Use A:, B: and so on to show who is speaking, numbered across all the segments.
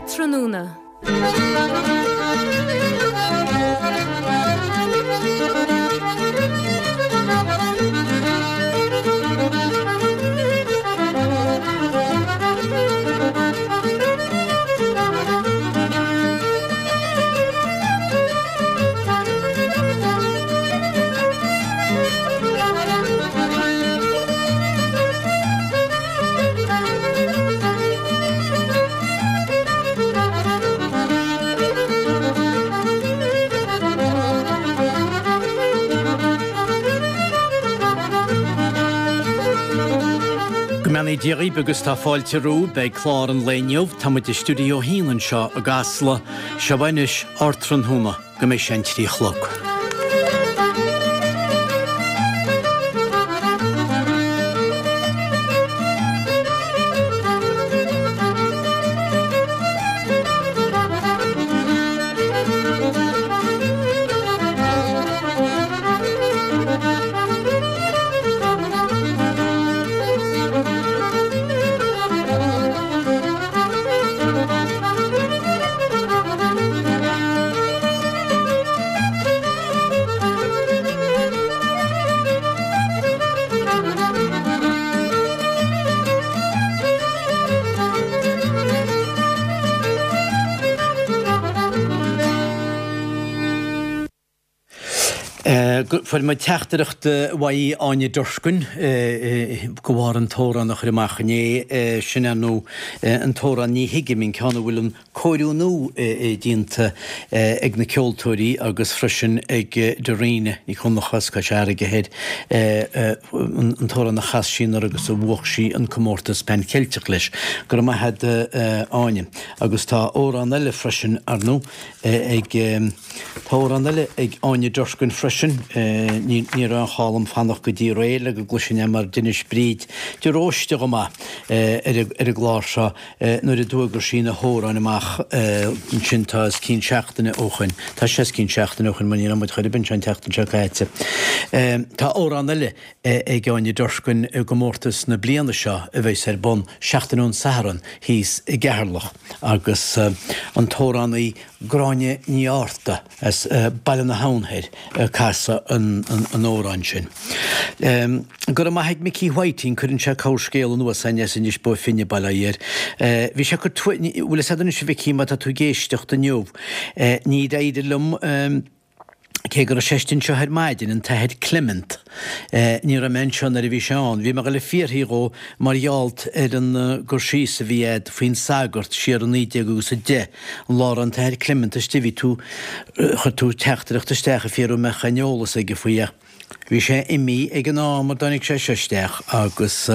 A: Ardtráthnóna.
B: Go mbeannaí Dia dhaoibh agus tá fáilte romhaibh beidh clár an lae inniu. Tá muid i Stiúideo 1 anseo i gCasla. Seo anois Ardtráthnóna. go mbeidh sé an 3 a chlog. Fuair muid teachtaireacht uaidh Áine Durkin de bharr an t-amhrán a chuir amach inné, sin ar ndóigh an t-amhrán Ní Thuigim, an ceann a bhfuil an cóiriú nua déanta ag na ceoltóirí agus freisin ag Dairena Nic Dhonncha as Cois Fharraige Thoir, an t-amhrán a chas sí anuraidh agus a bhuach sí an comórtas Pan Cheilteach leis. Go raibh maith agat Áine. Agus tá amhrán eile freisin, ar ndóigh, ag, tá amhrán eile ag Áine Durkin freisin, ní raibh aon chall dom fanacht go dtí aréir le go gcloisfinn é mar d'inis Bríd de Róiste chomh maith ar an gclár seo Nuair a d'fhuagair sí na hamhráin amach ansin tá os cionn seachtaine ó shoin, tá sé os cionn seachtaine ó shoin mar ní raibh muid chor ar bith anseo an tseachtain seo caite. Tá amhrán eile ag Áine Durkin i gcomórtas na bliana seo a bheas ar bun seachtain ón Satharn thíos i gCeatharlach agus an t-amhránaí Gráinne Ní Fhátharta as Baile na hAbhann Thoir ag casadh an amhráin sin. Go raibh maith ag Micí Whiting, cuireann sé corrscéal anuas againn as Inis Bó Finne, bail ó Dhia air. Bhí sé ag cur, bhfuil fhios agat anois a Mhicí, má tá tú ag éisteacht inniu, níor éirigh liom, cé go raibh sé istigh anseo ar maidin, an tAthair Clement, ní raibh mé anseo nuair a bhí sé ann. Bhí mé ag dul ag fiafraí dhó mar gheall ar an gcur síos a bhí a'd faoin sagart siar i 19 agus 10, an lá a raibh an tAthair Clement istigh, bhí tú, chuir tú teachtaireacht isteach ag fiafraí an mbeadh aon eolas aige faoi ach bhí sé imithe ag an am a dtáinig sé seo isteach agus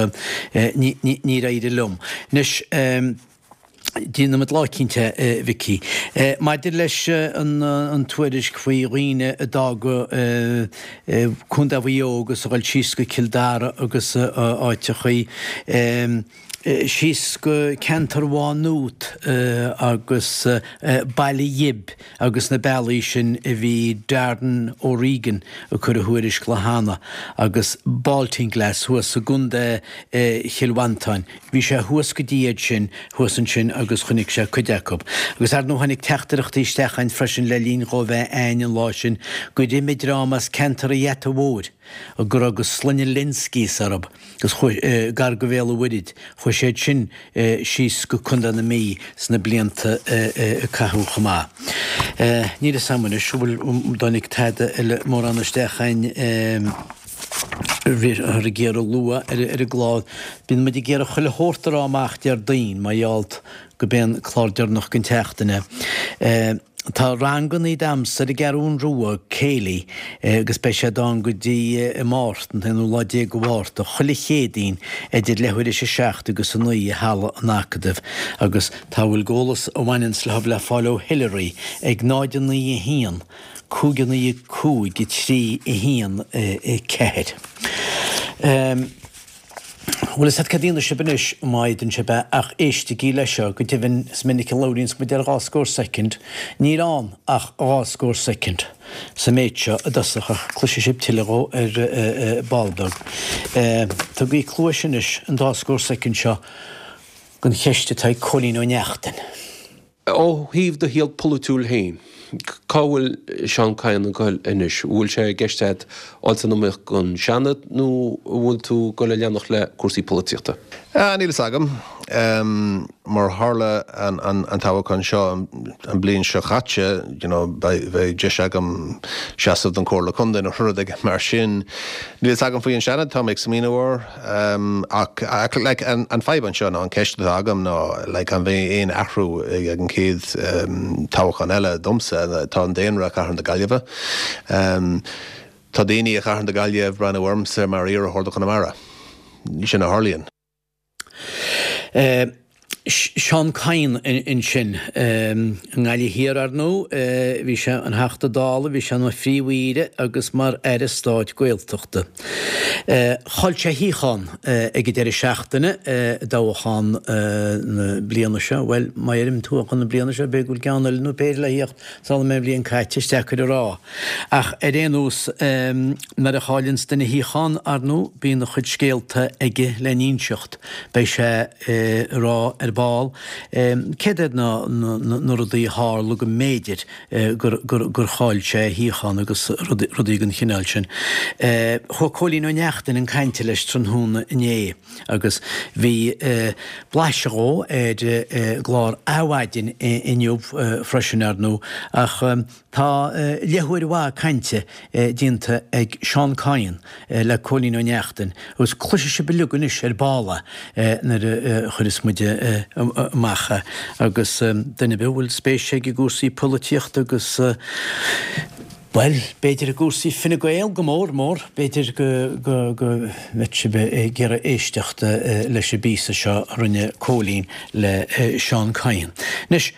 B: níor éirigh liom. Anois, déanfaimid lá eicínt é, a Mhicí. Maidir leis an tuairisc faoi dhaoine a d'fhág Contae Mhaigh Eo agus a ghoil síos go Cill Dara agus áiteachaí, síos go ceantar Mhá Nuat agus Baile Ghib agus na bealaí sin a bhí Darren O'Regan ag cur a thuairisc lá cheana agus Baltinglass thuas i gContae Chill Mhantáin. Bhí sé thuas go dtí iad sin thuas ansin agus chonaic sé cuid acu. Agus ar ndóigh tháinig teachtaireachtaí isteach againn freisin le linn dhó bheith a'ainn an lá sin gur imigh dream as ceantar an Gheata Mhóir go raibh go sloinne Lynskys orthu. agus chuaigh, gar go Bhéal an Mhuirthead, chuaigh siad sin síos go Contae na Mí sna blianta a caitheadh chomh maith. Níl fhios a'm anois an bhfuil, an dtáinig tada eile mórán isteach a'ainn bhíothar ag iarraidh a lua ar an gclár. Bíonn muid ag iarraidh chuile shórt a rá amach Déardaoin mar gheall go b'é an clár deireanach den tseachtain é. Tá rangannaí damhsa ar an gCeathrún Rua, Céilí, agus beidh siad ann go dtí i Máirt, an t-aonú lá déag de Mhárta, chuile Chéadaoin idir leathuair théis a 7 agus a 9 i Halla an Acadaimh agus tá a bhfuil d'eolas a bhaineanns leo le fáil ó Hilary ag 0 9 1 5 9 5 3 1 4. Bhfuil fhios a't cad a dhéanfaidh sibh anois, má fhéadann sibh é, ach éistigí leis seo, go deimhin is minic a labhraíonns muid ar dhá scór soicind, níl ann ach dhá scór soicind sa méid seo i dtosach ach cloisfidh sibh tuilleadh dhó ar ball beag. Tugaigí cluais anois an dá scór soicind seo don cheist atá ag Cóilín Ó Neachtain.
A: Ó thaobh do shaol polaitiúil féin, cá bhfuil Seán Kyne ag goil anois? An bhfuil sé i gceist agat dul san iomaíocht don Seanad nó an bhfuil tú ag goil a leanacht le cúrsaí polaitíochta?
C: Níl fhios agam. Mar tharla an toghchán seo an bliain seo chaite, you know, beidh deis agam seasamh don Chomhairle Contae nó rud éigin mar sin. Níl fhios agam faoi an Seanad, tá mé ag smaoineamh air. Ach like an fadhb anseo ná an ceist atá agam ná like an mbeidh aon athrú ag an chéad toghchán eile domsa? Tá an daonra i Cathair na Gaillimhe. Tá daoine i Cathair na Gaillimhe ag breathnú ormsa mar iarrthóir do Chonamara. Sin a tharlaíonn.
B: Seán Kyne ansin. I nGaillimh Thiar, ar ndóigh, bhí sé ina Theachta Dála, bhí sé ina Phríomh-Aoire agus mar Aire Stáit Gaeltachta. Chaill sé a shuíochán ag an deireadh seachtaine i dtoghchán na bliana seo. Bhuel, má dheirim toghchán na bliana seo, b'fhéidir go bhfuil ceann eile nó péire le theacht sula mbeidh an bhliain caite, is deacair a rá. Ach ar aon nós, nuair a chailleanns duine a shuíochán, ar ndóigh, bíonn a chuid scéalta aige le n-inseacht. Beidh sé ag rá ar ball céard iad na rudaí a tharla go mb'fhéidir gur chaill sé a shuíochán agus rudaí den chineál sin. Chuaigh Cóilín Ó Neachtain chun cainte leis tráthnóna inné agus bhí blaiseadh dhó ar an gclár Adhmhaidin inniu freisin, ar ndóigh, ach Tá leathuair mhaith cainte déanta ag Seán Kyne le Cóilín Ó Neachtain agus cloisfidh sibh uilig anois ar ball é nuair a chuireas muid amach é. Agus duine ar bith a bhfuil spéis aige i gcúrsaí polaitíochta agus, bhuel, b'fhéidir i gcúrsaí Fine Gael go mór mór, b'fhéidir go mbeadh sibh ag iarraidh éisteacht leis an bpíosa seo a rinne Cóilín le Seán Kyne. Anois.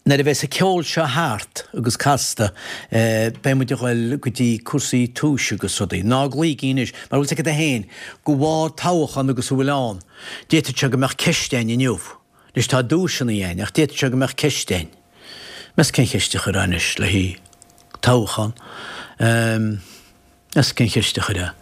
B: Nuair a bheas an ceol seo thart agus casta, beidh muid a ghoil go dtí cúrsaí tomhais agus rudaí. Ná glaoigí anois, mar bhfuil 's agat féin, de bharr toghchán agus a bhfuil ann, d'fhéadfadh sé go mbeadh ceist againn inniu. Anois tá duaiseanna againn, ach d'fhéadfadh sé go mbeadh ceist againn. Meas cén cheist a chuirfeá anois le haghaidh toghchán? Meas cén cheist a chuirfeá?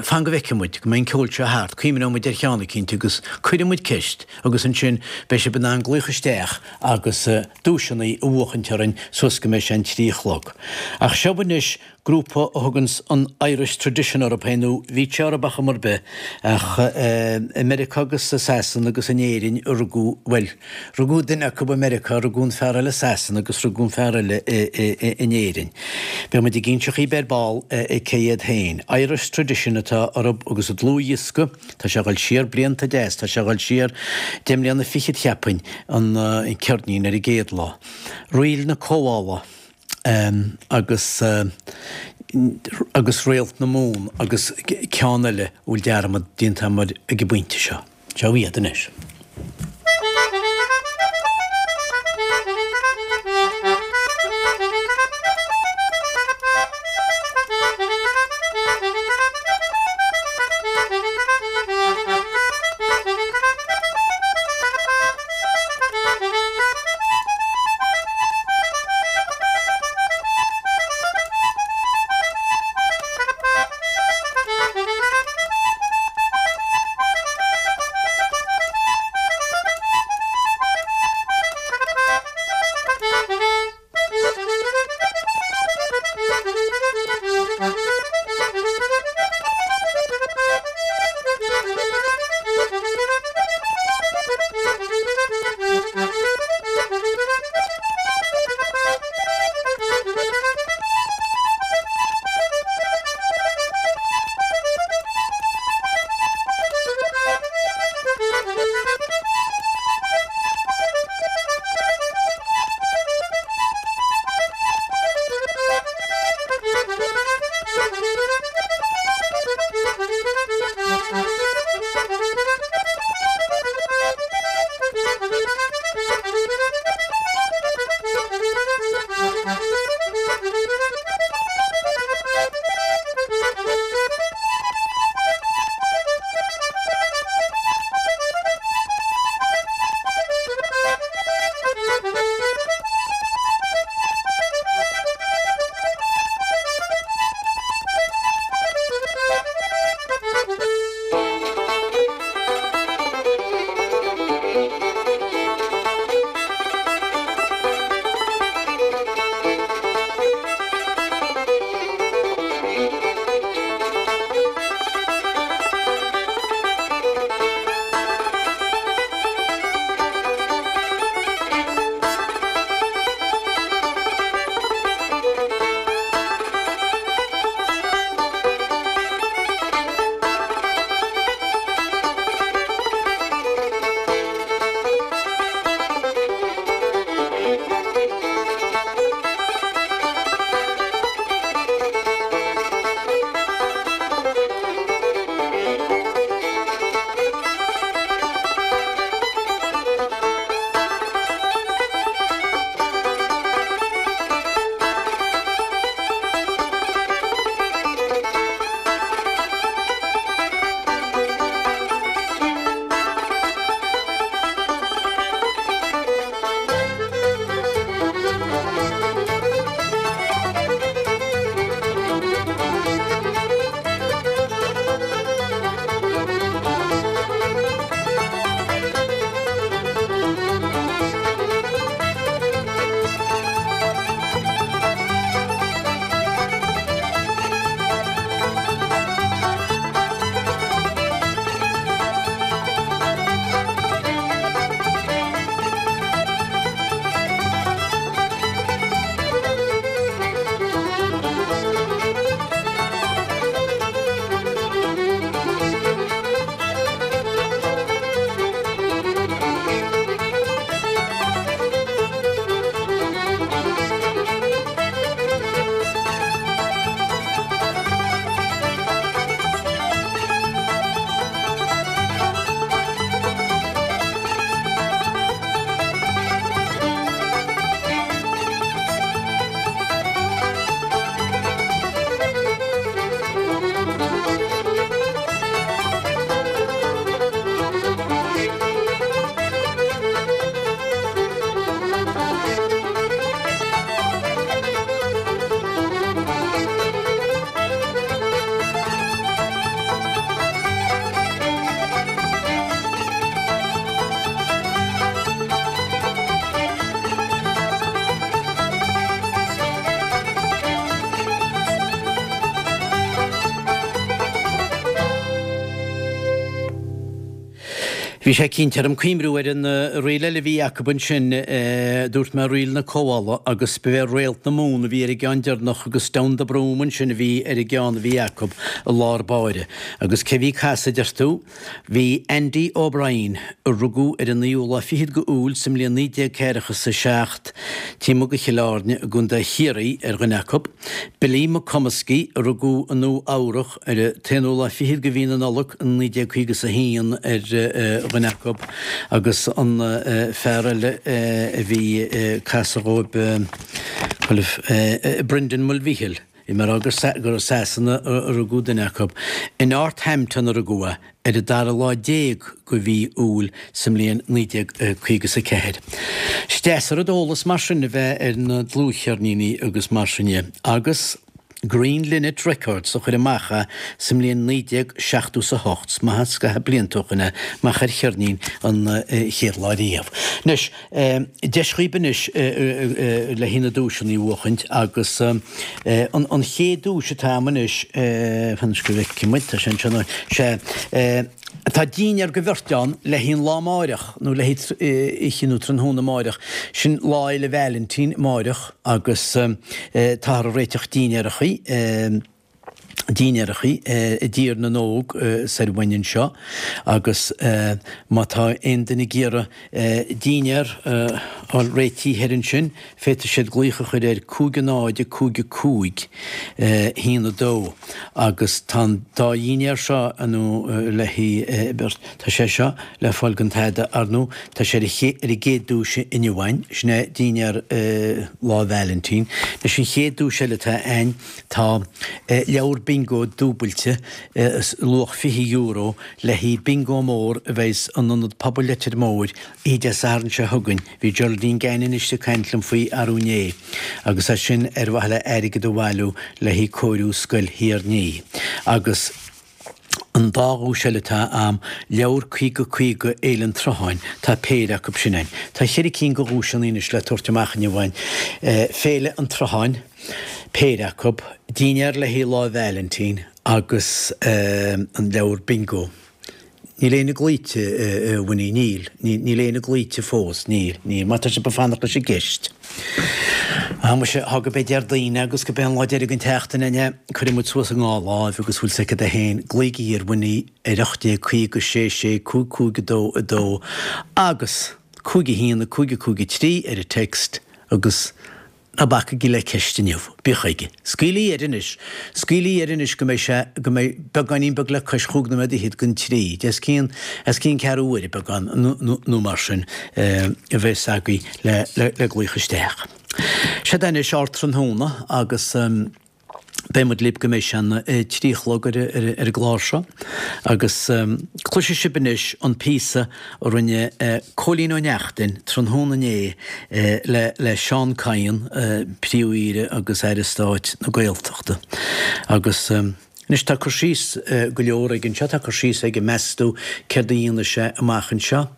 B: Fan go bhfeicfidh muid, go mbeidh an ceol seo thart, cuimhneoidh muid ar cheann eicínt agus cuirfidh muid ceist agus ansin beidh sibh in ann glaoch isteach agus duaiseanna a bhuachaint orainn suas go mbeidh sé an 3 a chlog. Ach seo anois grúpa a thuganns an Irish Tradition orthu féin, nó bhí sé orthu ar chuma ar bith, ach i Meiriceá agus i Sasana agus in Éirinn a rugadh, bhuel, Rugadh duine acu i Meiriceá, rugadh an fear eile i Sasana agus rugadh an fear eile in Éirinn. Beidh muid ag inse dhaoibh ar ball cé hiad féin. Irish Tradition atá orthu agus a dlúthdhiosca, tá sé ag dul siar blianta deas, tá sé ag dul siar deich mbliana fichead cheapfainn, an ceirnín ar an gcéad lá. Ríl na Comhdhála agus agus Réalt na Mumhan agus ceann eile a bhfuil dearmad déanta agam air ag an bpointe seo. Seo iad anois. Bhí sé cinnte orm cuimhniú ar an ríl eile a bhí acu ansin, dúirt mé ríl na Comhdhála agus ba é Réalt na Mumhan a bhí ar an gceann deireanach agus Down the Broom ansin a bhí ar an gceann a bhí acu i lár báire. Agus cé bhí ag casadh, deir tú? Bhí Andy O'Brien, a rugadh ar an naoú lá fichead go Iúil sa mbliain 1947, taobh amuigh de Chill Airne i gContae Chiarraí, ar dhuine acu, Billy McComiskey, a rugadh i Nua Eabhrac, Ar an t-aonú lá fichead de mhí na Nollag 1951 ar dhuine acu agus an fear eile a bhí ag casadh dhóibh, Brendan Mulvihill, bhí mé a rá gur i Sasana a rugadh duine acu. I Northampton a rugadh é ar an dara lá déag de mhí Iúil sa mbliain 1954. Is deas an rud eolas mar sin a bheith ar na dlúthcheirníní agus mar sin dhe agus. Green Linnet Records a chuir amach é sa mbliain 1978. Is maith an scaitheamh blianta ó shoin é amach ar cheirnín an chéad lá riamh. Anois, deis dhaoib anois le haghaidh na duaiseanna a bhuachaint agus an chéad duais atá a'm anois, fan go bhfeicfidh muid, tá sé anseo, sé, Tá dinnéar go bheirt ann le haghaidh an lá amáireach, nó le haghaidh oíche nó tráthnóna amáireach. Sin Lá Fhéile Vailintín amáireach agus táthar ag réiteach dinnéarachaí, dinnéarachaí i dTír na nÓg soir uainn anseo agus má tá aon duine ag iarraidh dinnéar a fháil réitithe thoir ansin, Féadfaidh siad glaoch a chur ar 5 0 5 5 1 2 agus tá an dá dhinnéar seo nó le haghaidh beirt, tá sé seo le fáil gan tada ar ndóigh, tá sé ar an gcéad duais inniu againn, sin é dinnéar Lá Vailintín. Anois an chéad duais eile atá againn, tá leabhar bingo dúbailte, luach €20, le haghaidh bingo mór a bheidh in Ionad Pobail Leitir Móir Oíche Dé Sathairn seo chugainn, bhí Geraldine Gannon istigh ag caint liom faoi arú inné, agus é sin ar mhaithe le airgead a bhailiú le haghaidh cóiriú Scoil Thír an Fhia. Agus an dá dhuais eile atá a'm, leabhar 50 50 Fhéile an tSrutháin, tá péire acu sin a'inn. Tá cheithre cinn de dhuaiseanna anois le tabhairt amach inniu a'inn. Féile an tSrutháin, péire acu, dinnéar le haghaidh Lá Vailintín agus an leabhar bingo. Níl éinne glaoite, a Winnie, níl. Níl éinne glaoite fós, níl, níl. Má tá sibh ag fanacht leis an gceist. Á, muise, thá go bé Déardaoin agus go bé an lá deiridh den tseachtain inniu, cuirfidh muid suas an dhá láimh agus bhfuil 's agat é féin, glaoigí ar Winnie ar 1850 6 6 5 5 2 2 agus 5 1 5 5 3 ar an text agus Ná bacaigí le ceist inniu. Bíodh chuige. Scaoil í air anois. Scaoil í air anois go mbeidh sé, go mbeidh beagáinín beag le cois chúig nóiméad fhichead don trí. Os cionn, os cionn ceathrú uaire beagán nó mar sin a bheas agaibh le, le, le glaoch isteach. Seod é anois ár tráthnóna agus. Beidh muid libh go mbeidh sé an 3 a chlog ar an gclár seo agus cloisfidh sibh anois an píosa a rinne Cóilín Ó Neachtain tráthnóna inné le Seán Kyne, Príomh-Aoire agus Aire Stáit na Gaeltachta. Agus anois tá cur síos go leor aige anseo, tá cur síos aige meas tú céard a dhéanfaidh sé amach anseo.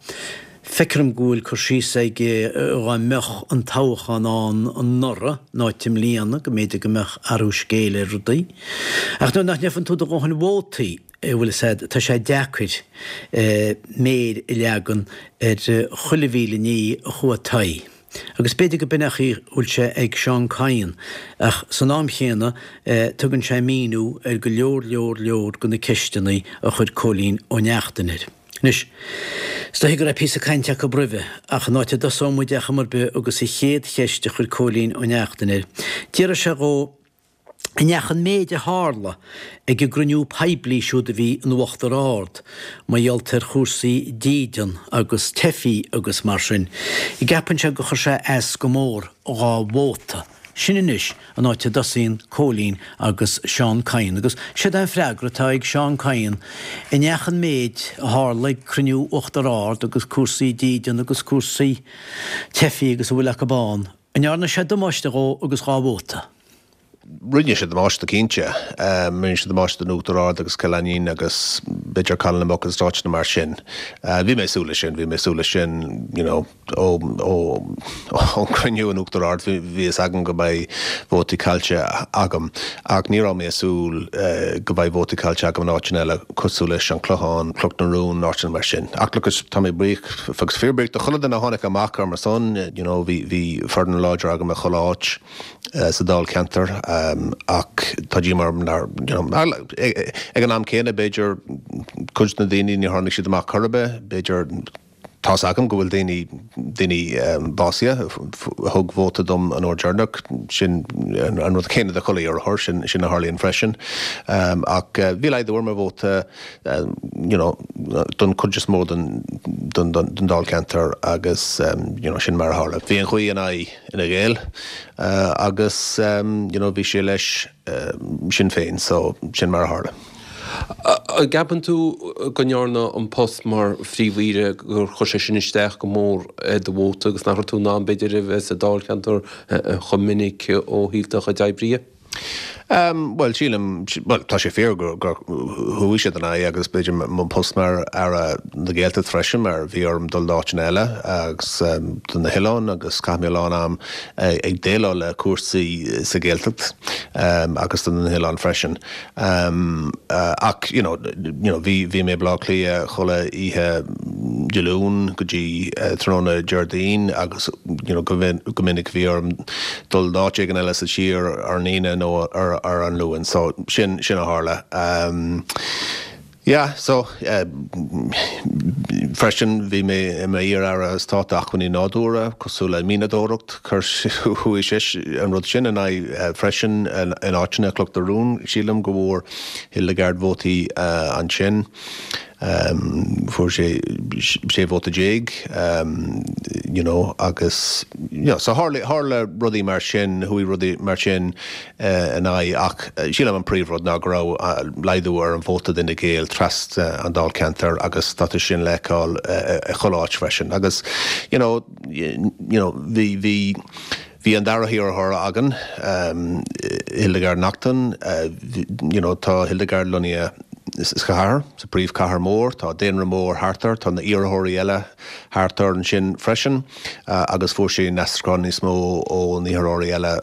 B: Feictear dom go bhfuil cur síos aige dhá mbeadh an toghchán ann anuraidh in áit i mbliana, go mb'fhéidir go mbeadh athrú scéil ar rudaí. Ach nuair nach ngeibheann tú do dhóthain vótaí, bhfuil fhios a'd, tá sé deacair méir a leagan ar chuile mhíle ní a chuaigh taghaidh. Agus b'fhéidir go b'in é an chaoi a bhfuil sé ag Seán Kyne, ach san am chéanna tugann sé míniú ar go leor leor leor de na ceisteanna a chuir Cóilín Ó Neachtain air. Anois, is dóiche go raibh píosa cainte acu roimhe, ach an áit a dtosóidh muid ar chuma ar bith agus an chéad cheist a chuir Cóilín Ó Neachtain air, d'fhiafraigh sé dhó an ndeachaigh an méid a tharla ag an gcruinniú poiblí siúd a bhí in Uachtar Ard, mar gheall ar chúrsaí dídean agus teifigh agus mar sin, an gceapann sé gur chuir sé as go mór dhá vóta. Sin anois an áit a dtosaíonn Cóilín agus Seán Kyne agus séard é an freagra atá ag Seán Kyne, an ndeachaigh an méid a tharla ag cruinniú Uachtar Ard agus cúrsaí dídean agus cúrsaí teifigh agus a bhfuil acu ann, an ndearna sé damáiste dhó agus dhá vóta?
C: Rinne sé damáiste cinnte. Rinne sé damáiste don Uachtar Ard agus Cill Ainnín agus b'fhéidir Caladh na Muc agus áiteanna mar sin. Bhí mé ag súil leis sin, bhí mé ag súil leis sin you know ó ón gcruinniú in Uachtar Ard bhí fhios agam go mbeidh vótaí caillte agam ach ní raibh mé ag súil go mbeidh vótaí caillte agam in áiteanna eile cosúil leis an Clochán, Cnoc na Rún, áiteanna mar sin. Ach look tá mé buíoch agus fíorbhuíoch do chuile duine a tháinig amach ar mo son, you know bhí bhí foireann láidir agam i chuile áit. sa dáilcheantar ach tá díomá orm nár, you know, ag an am céanna b'fhéidir cuid de na daoine níor tháinig siad amach chor ar bith, b'fhéidir tá's agam go bhfuil daoine, daoine básaithe a thug vóta dom an uair deireanach, sin an rud céanna do chuile iarrthóir, sin, sin a tharlaíonn freisin. Ach bhí laghdú ar mo vóta you know, don chuid is mó den, den, den dáilcheantar agus you know, sin mar a tharla. Bhí an ghaoth in aghaidh. Fhine Gael agus you know bhí sé leis Sinn Féin so sin mar a tharla.
A: An gceapann tú go ndearna an post mar Phríomh-Aoire gur chuir sé sin isteach go mór ar do vóta agus nach raibh tú in ann b'fhéidir a bheith sa dáilcheantar chomh minic ó thaobh do chuid oibre dhe?
C: Bhuel, sílim, bhuel, tá sé fíor gur chuaigh siad in aghaidh agus b'fhéidir mo post mar Aire na Gaeltachta freisin mar bhí orm dul d'áiteanna eile agus do na hoileáin agus chaith mé a lán am ag déileáil le cúrsaí sa Ghaeltacht agus do na hoileáin freisin. Ach, you know, you know, bhí, bhí mé i Baile Átha Cliath chuile oíche Dé Luain go dtí tráthnóna Déardaoin agus, you know, go minic bhí orm dul d'áit éigin eile sa tír ar an Aoine nó ar an Luan. So, sin, sin a tharla. Yeah, so, freisin bhí mé i m'iar-aire stáit acmhainní nádúrtha, cosúil le mianadóireacht, chuir, chuaigh sé, an rud sin in aghaidh freisin in áiteanna, Cnoc na Rún, sílim go bhfuair Hildegarde vótaí ansin. Fuair sé 16 vóta you know agus you know so tharla tharla rudaí mar sin, chuaigh rudaí mar sin in aghaidh ach sílim an príomhrud ná go raibh laghdú ar an vóta d'Fhine Gael trasna an dáilcheantair agus tá sin le feiceáil i chuile áit freisin agus you know you know bhí bhí Bhí an dara hiarrthóir againn, Hildegarde Naughton, you know tá Hildegarde lonnaithe sa chathair, sa príomhchathair mór, tá daonra mór thart air, tá na iarrthóirí eile thart air ansin freisin agus fuair sí an aistriúchán níos mó ó na hiarrthóirí eile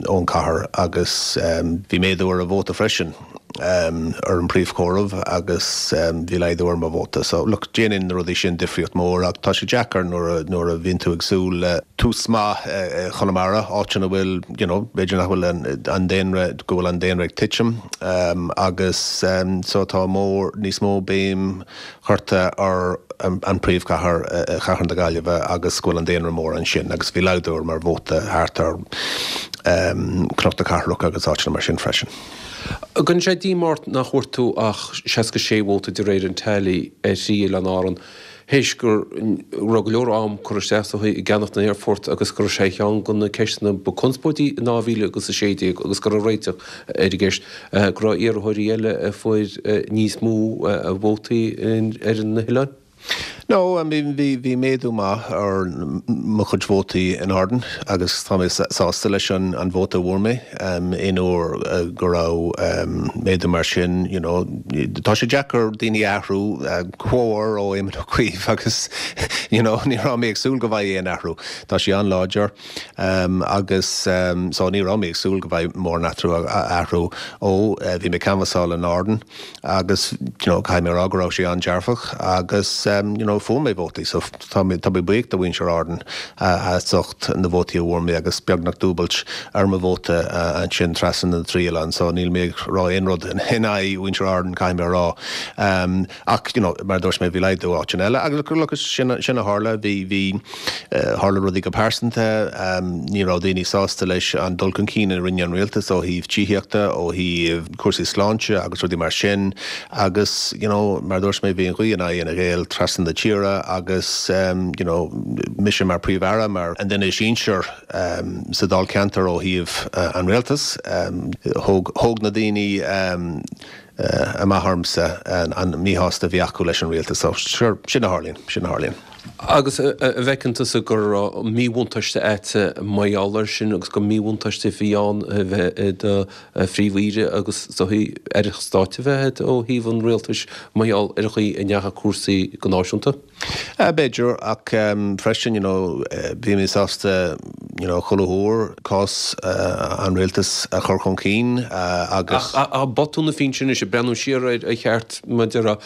C: ón chathair agus bhí méadú ar a vóta freisin. ar an príomhchomhaireamh agus bhí laghdú ar mo vóta. So, look, déanann na rudaí sin difríocht mór ach tá sé deacair nuair a, nuair a bhíonn tú ag súil le tús maith i Chonamara, áit ina bhfuil, you know, b'fhéidir nach bhfuil an, an daonra, go bhfuil an daonra ag titim agus so tá mór, níos mó béim curtha ar an príomhchathair, Cathair na Gaillimhe agus go bhfuil an daonra mór ansin agus bhí laghdú ar mo vóta thart ar Cnoc na Cathrach agus áiteanna mar sin freisin.
A: An gcuireann sé díomá ort nach bhfuair tú ach 66 vóta de réir an tally ar thrí oileán Árann, théis go raibh go leor am curtha isteach is dóigh i gceannach na n-aerfort agus go raibh sé ar cheann de na ceisteanna ba conspóidí in 2016 agus go raibh réiteach ar an gceist, go raibh iarrthóirí eile a fuair níos mó vótaí ar na hoileáin?
C: No, I mean bhí, bhí méadú maith ar mo chuid vótaí in Árainn agus tá mé sásta leis an an vóta a bhfuair mé. Aon uair go raibh méadú mar sin, you know, tá sé deacair daoine a athrú, comhar ó Éamon Ó Cuív agus you know ní raibh mé ag súil go bhfaighidh aon athrú. Tá sé an-láidir agus so ní raibh mé ag súil go bhfaighidh mórán athrú, athrú ó bhí mé ag canbhasáil in Árainn. agus you know caithfidh mé a rá go raibh sé an-dearfach agus you know fuair mé vótaí so tá mé tá mé buíoch do mhuintir Árann as ucht na vótaí a bhfuair mé agus beagnach dúbailt ar mo vóta ansin trasna na dtrí oileán so níl mé ag rá aon rud in aghaidh mhuintir Árann caithfidh mé a rá ach you know mar a dúirt mé bhí laghdú áiteanna eile agus look sin sin a tharla bhí bhí Tharla rudaí go pearsanta, ní raibh daoine sásta leis an dul chun cinn a rinne an rialtas ó thaobh tithíochta, ó thaobh cúrsaí sláinte agus rudaí mar sin agus you know mar a dúirt mé bhí an ghaoth in aghaidh Fhine Gael trasna na tíre agus you know mise mar Príomh-Aire, mar an duine is sinsear sa Dáilcheantar ó thaobh an rialtais, thóg, thóg na daoine amach ormsa an míshásta a bhí acu leis an rialtas. So, sure, sin a tharlaíonn, sin a tharlaíonn.
A: Agus an bhfeiceann tusa go raibh míbhuntáiste a'd mar gheall air sin agus gur míbhuntáiste a bhí ann a bheith i do phríomh-aoire agus is dóichí aire stáit a bheith a'd ó thaobh an rialtais mar gheall ar an chaoi a ndeachaigh cúrsaí go náisiúnta?
C: B'fhéidir, ach freisin, you know, bhí mé sásta, you know, chuile huair cás an rialtais a chur chun cinn agus.
A: Ach botún a bhí ansin anois, ag breathnú siar air a cheart, mar a déarfá,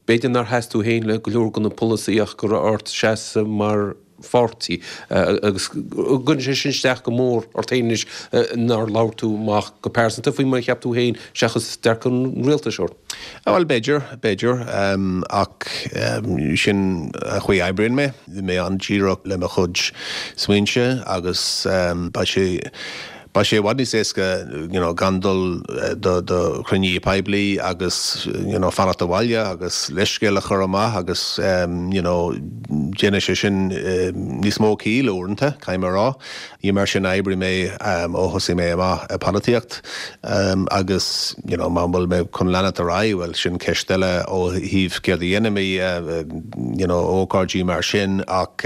A: B'fhéidir nár sheas tú féin le go leor de na polasaithe ach go raibh ort seasamh mar pháirtí agus an gcuireann sé sin isteach go mór ort féin anois nár labhair tú amach go pearsanta faoi mar a cheap tú féin seachas dearcadh an rialtais ort?
C: Bhuel, b'fhéidir, b'fhéidir, ach sin an chaoi a oibríonn mé. Bhí mé an-díreach le mo chuid smaointe agus beidh sé Beidh sé i bhfad níos éasca you know gan dul do do chruinnithe poiblí agus you know fanacht abhaile agus leithscéal a chur amach agus you know déanann sé sin níos mó ciall uaireanta, caithfidh mé a rá. Ní mar sin a oibrigh mé ó thosaigh mé amach i polaitíocht agus you know má bhfuil mé chun leanacht ar aghaidh, bhuel sin ceist eile ó thaobh céard a dhéanfaidh mé you know ócáidí mar sin ach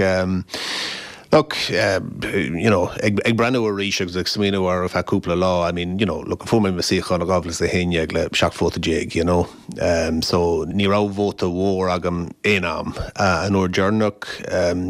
C: Look, you know, ag breathnú arís agus ag smaoineamh air ar feadh cúpla lá, I mean, you know, look, fuair mé mo suíochán i 2011 le 17 vóta, you know, so ní raibh vóta mhór agam aon am. An uair deireanach,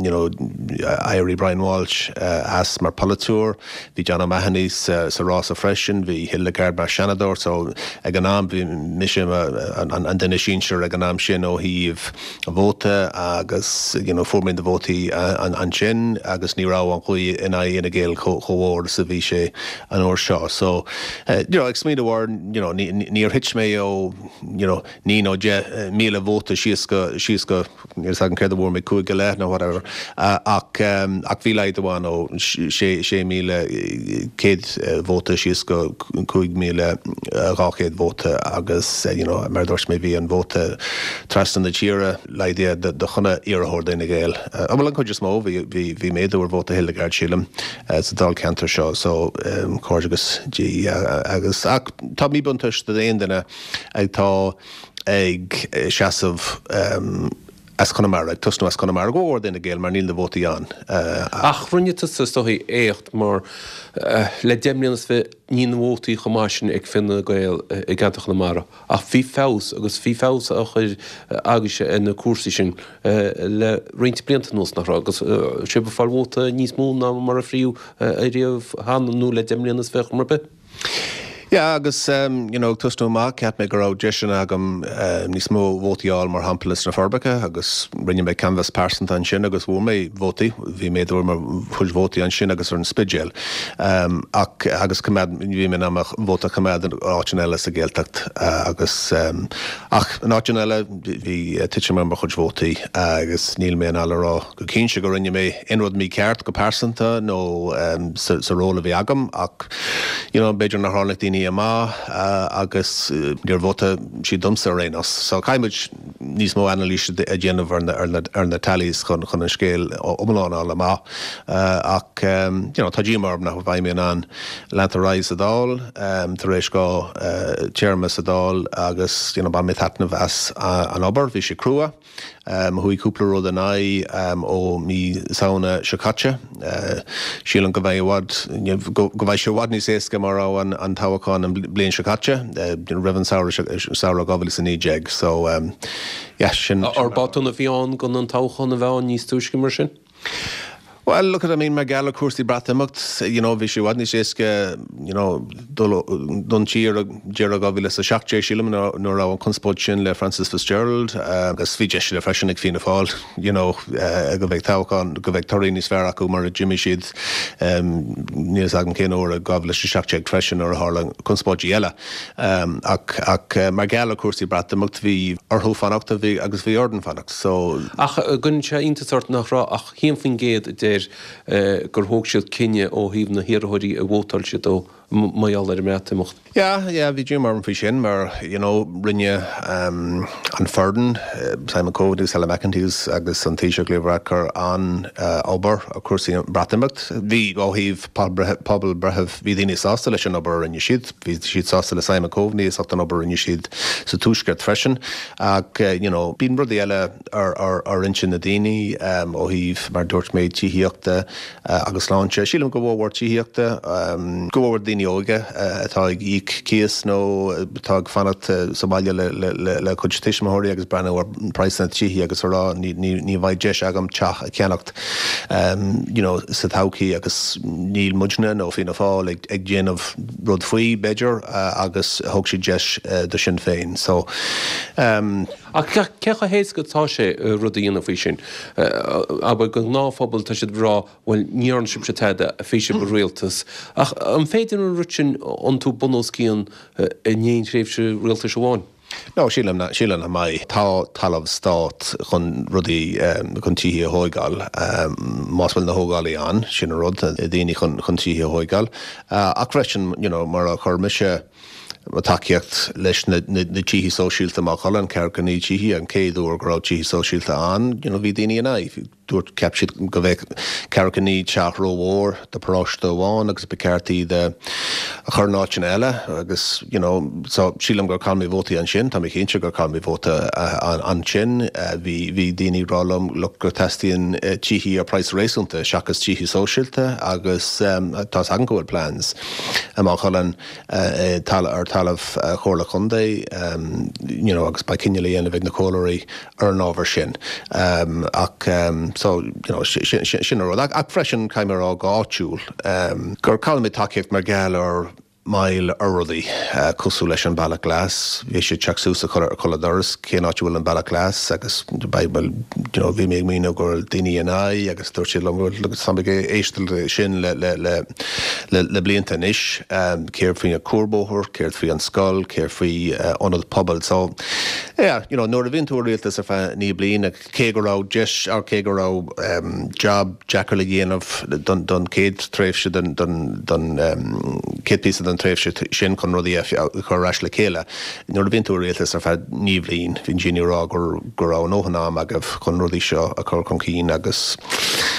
C: you know, d'éirigh Brian Walsh as mar polaiteoir, bhí John O'Mahony sa rása freisin, bhí Hildegarde mar Seanadóir, so ag an am bhí mise an duine sinsir ag an am sin ó thaobh vóta agus you know fuair mé na vótaí ansin agus ní raibh an ghaoth in aghaidh Fhine Gael chomh mhór is a bhí sé an uair seo. So you know ag smaoineamh air you know níor thit mé ó you know 9 nó 10,000 vóta síos go síos go níl a fhios agam céard a bhfuair mé cúig go leith nó whatever ach ach bhí laghdú ann ó 6,100 vóta síos go 5,200 vóta agus you know mar a dúirt mé bhí an vóta Trasna na tíre, laghdaithe do chuile iarrthóir d'Fhine Gael. Bhuel, an chuid is mó, bhí, bhí méadú ar vóta Hildegarde, sílim, sa dáilcheantar seo, so comhghairdeachas di agus, ach tá míbhuntáiste d'aon duine atá ag seasamh as Conamara, ag tosnú as Conamara, go mór d'Fhine Gael mar níl na vótaí ann.
A: Ach rinne tusa, is dóichí, éacht mar le 10 mbliana is fiche níl na vótaí chomh maith sin ag Fine Gael i gceantar Chonamara. Ach bhí feabhas, agus bhí feabhas á chur agaibhse ar na cúrsaí sin le roinnt blianta anuas, nach raibh? Agus sibh ag fáil vóta níos mó ná mar a fríodh ariamh cheana, nó le 10 mbliana is fiche mar bith.
C: Yeah, agus you know, ag tosnú amach, cheap mé go raibh deiseanna agam níos mó vótaí a fháil, mar shampla sna Forbacha, agus rinne mé canbhás pearsanta ansin agus bhfuair mé vótaí, bhí méadú ar mo chuid vótaí ansin agus ar an Spidéal. Ach, agus coimeád, bhí mé in ann mo vóta a choimeád in áiteanna eile sa Ghaeltacht agus, ach in áiteanna eile bhí titim ar mo chuid vótaí agus níl mé in ann a rá go cinnte go rinne mé aon rud mícheart go pearsanta nó sa ról a bhí agam ach you know b'fhéidir nár tháinig daoine amach agus níor vótaigh siad domsa ar aon nós. So caithfidh muid níos mó anailíse a dhéanamh ar na tallies chun an scéal iomlán a fháil amach ach you know tá díomá orm nach mbeidh mé in ann leanacht ar aghaidh sa Dáil tar éis 2 téarma sa Dáil agus you know bhain mé taitneamh as an obair, bhí sé crua. Chuaigh cúpla rud in aghaidh ó mí Samhna seo caite. Sílim go mbeidh i bhfad, go mbeidh sé i bhfad níos éasca mar a raibh an toghchán an bliain seo caite, roimh an samhradh, samhradh 2019. So, yeah, sin.
A: Ar botún a bhí ann gan an toghchán a bheith ann níos túisce mar sin?
C: Well, look at, I mean, mar gheall ar cúrsaí Breatimeacht, you know, bhí sé i bhfad níos éasca, you know, dul don tír ag deireadh 2017, sílim, nuair a raibh an conspóid sin le Frances Fitzgerald, agus bhí deis eile freisin ag Fianna Fáil, you know, go mbeidh toghchán, go mbeidh torthaí níos fearr acu mura d'imigh siad, níl fhios agam cén uair i 2017 freisin nuair a tharla conspóidí eile. Ach, ach mar gheall ar cúrsaí Breatimeacht, bhí orthu fanacht, bhí, agus bhí orainn fanacht, so.
A: Ach an gcuireann sé iontas ort nach raibh ach 11% air gur thóg siad cinneadh ó thaobh na hiarrthóirí a vótáil siad dó mar gheall ar an mBreatimeacht.
C: Yeah, yeah, bhí díomá orm faoi sin mar, you know, rinne an foireann, Simon Coveney agus Helen McEntee agus an Taoiseach Leo Varadkar an-obair ar chúrsaí an Bhreatimeacht. Bhí, ó thaobh pobalbhreithimh, bhí daoine sásta leis an obair a rinne siad. Bhí siad sásta le Simon Coveney as ucht an obair a rinne siad sa Tuaisceart freisin. Ach, you know, bíonn rudaí eile ar intinn na daoine ó thaobh, mar a dúirt mé, tithíochta agus sláinte. Sílim go mhór mhór tithíochta, go mhór mhór daoine óga atá ag íoc cíos nó atá ag fanacht sa bhaile le cuid tuismitheoirí agus breathnú ar praghsanna tithí agus a rá ní bheidh deis agam teach a cheannacht you know sa todhchaí agus níl muidne nó Fianna Fáil ag déanamh rud faoi b'fhéidir agus thug siad deis do Sinn Féin so.
A: Ach cé chomh héasca atá sé rud a dhéanamh faoi sin? Abair, don ghnáthphobal, tá siad ag rá, bhuel, ní dhearna sibhse tada, bhí sibh i rialtas. Ach an féidir an rud sin iontú bun os cionn in aon thréimhse rialtais amháin?
C: No, sílim nach, sílim nach mbeidh. Tá talamh stát chun rudaí, chun tithe a thóigeáil, más bhfuil na thógálaí ann, sin an rud, daoine chun, chun tithe a thóigeáil. Ach freisin, you know, mar a chuir mise, mo tacaíocht leis na tithe sóisialta i Maigh Cuilinn, 49 tithe, an chéad uair go raibh tithe sóisialta ann, you know, bhí daoine in aghaidh. Dúirt, cheap siad go bheadh 49 teach rómhór do paróiste amháin agus ba cheart iad a chur in áiteanna eile agus, you know, so sílim gur chaill mé vótaí ansin, tá mé cinnte gur chaill mé vóta ansin. Bhí, bhí daoine ag rá liom, look, go teastaíonn tithe ar praghas réasúnta seachas tithe sóisialta agus tá's agam go bhfuil plans i Maigh Cuilinn. ar talamh Chomhairle Contae you know agus beidh cinneadh le dhéanamh ag na comhairleoirí ar an ábhar sin. Ach so you know sin an rud. Ach freisin caithfidh mé a rá go áitiúil gur chaill mé tacaíocht mar gheall ar moill ar rudaí cosúil leis an Bealach Glas. Bhí sé ag teacht suas ar chuile doras cén áit a bhfuil an Bealach Glas agus bhuel you know bhí mé ag míniú go raibh daoine in aghaidh agus dúirt siad liom bhuel tá mé ag éisteacht le sin le le le Le blianta anois, céard faoi an cuarbhóthar, céard faoi an scoil, céard faoi ionad pobail. So, yeah, you know, nuair a bhíonn tú i rialtas ar feadh 9 bliana, cé go raibh deis, or cé go raibh job deacair le dhéanamh don don chéad tréimhse den don don chéad píosa den tréimhse sin chun rudaí a chur ar ais le chéile, Nuair a bhíonn tú i rialtas ar feadh 9 bhliain, bhíonn daoine ag rá go raibh a ndóthain am agaibh chun rudaí seo a chur chun cinn agus.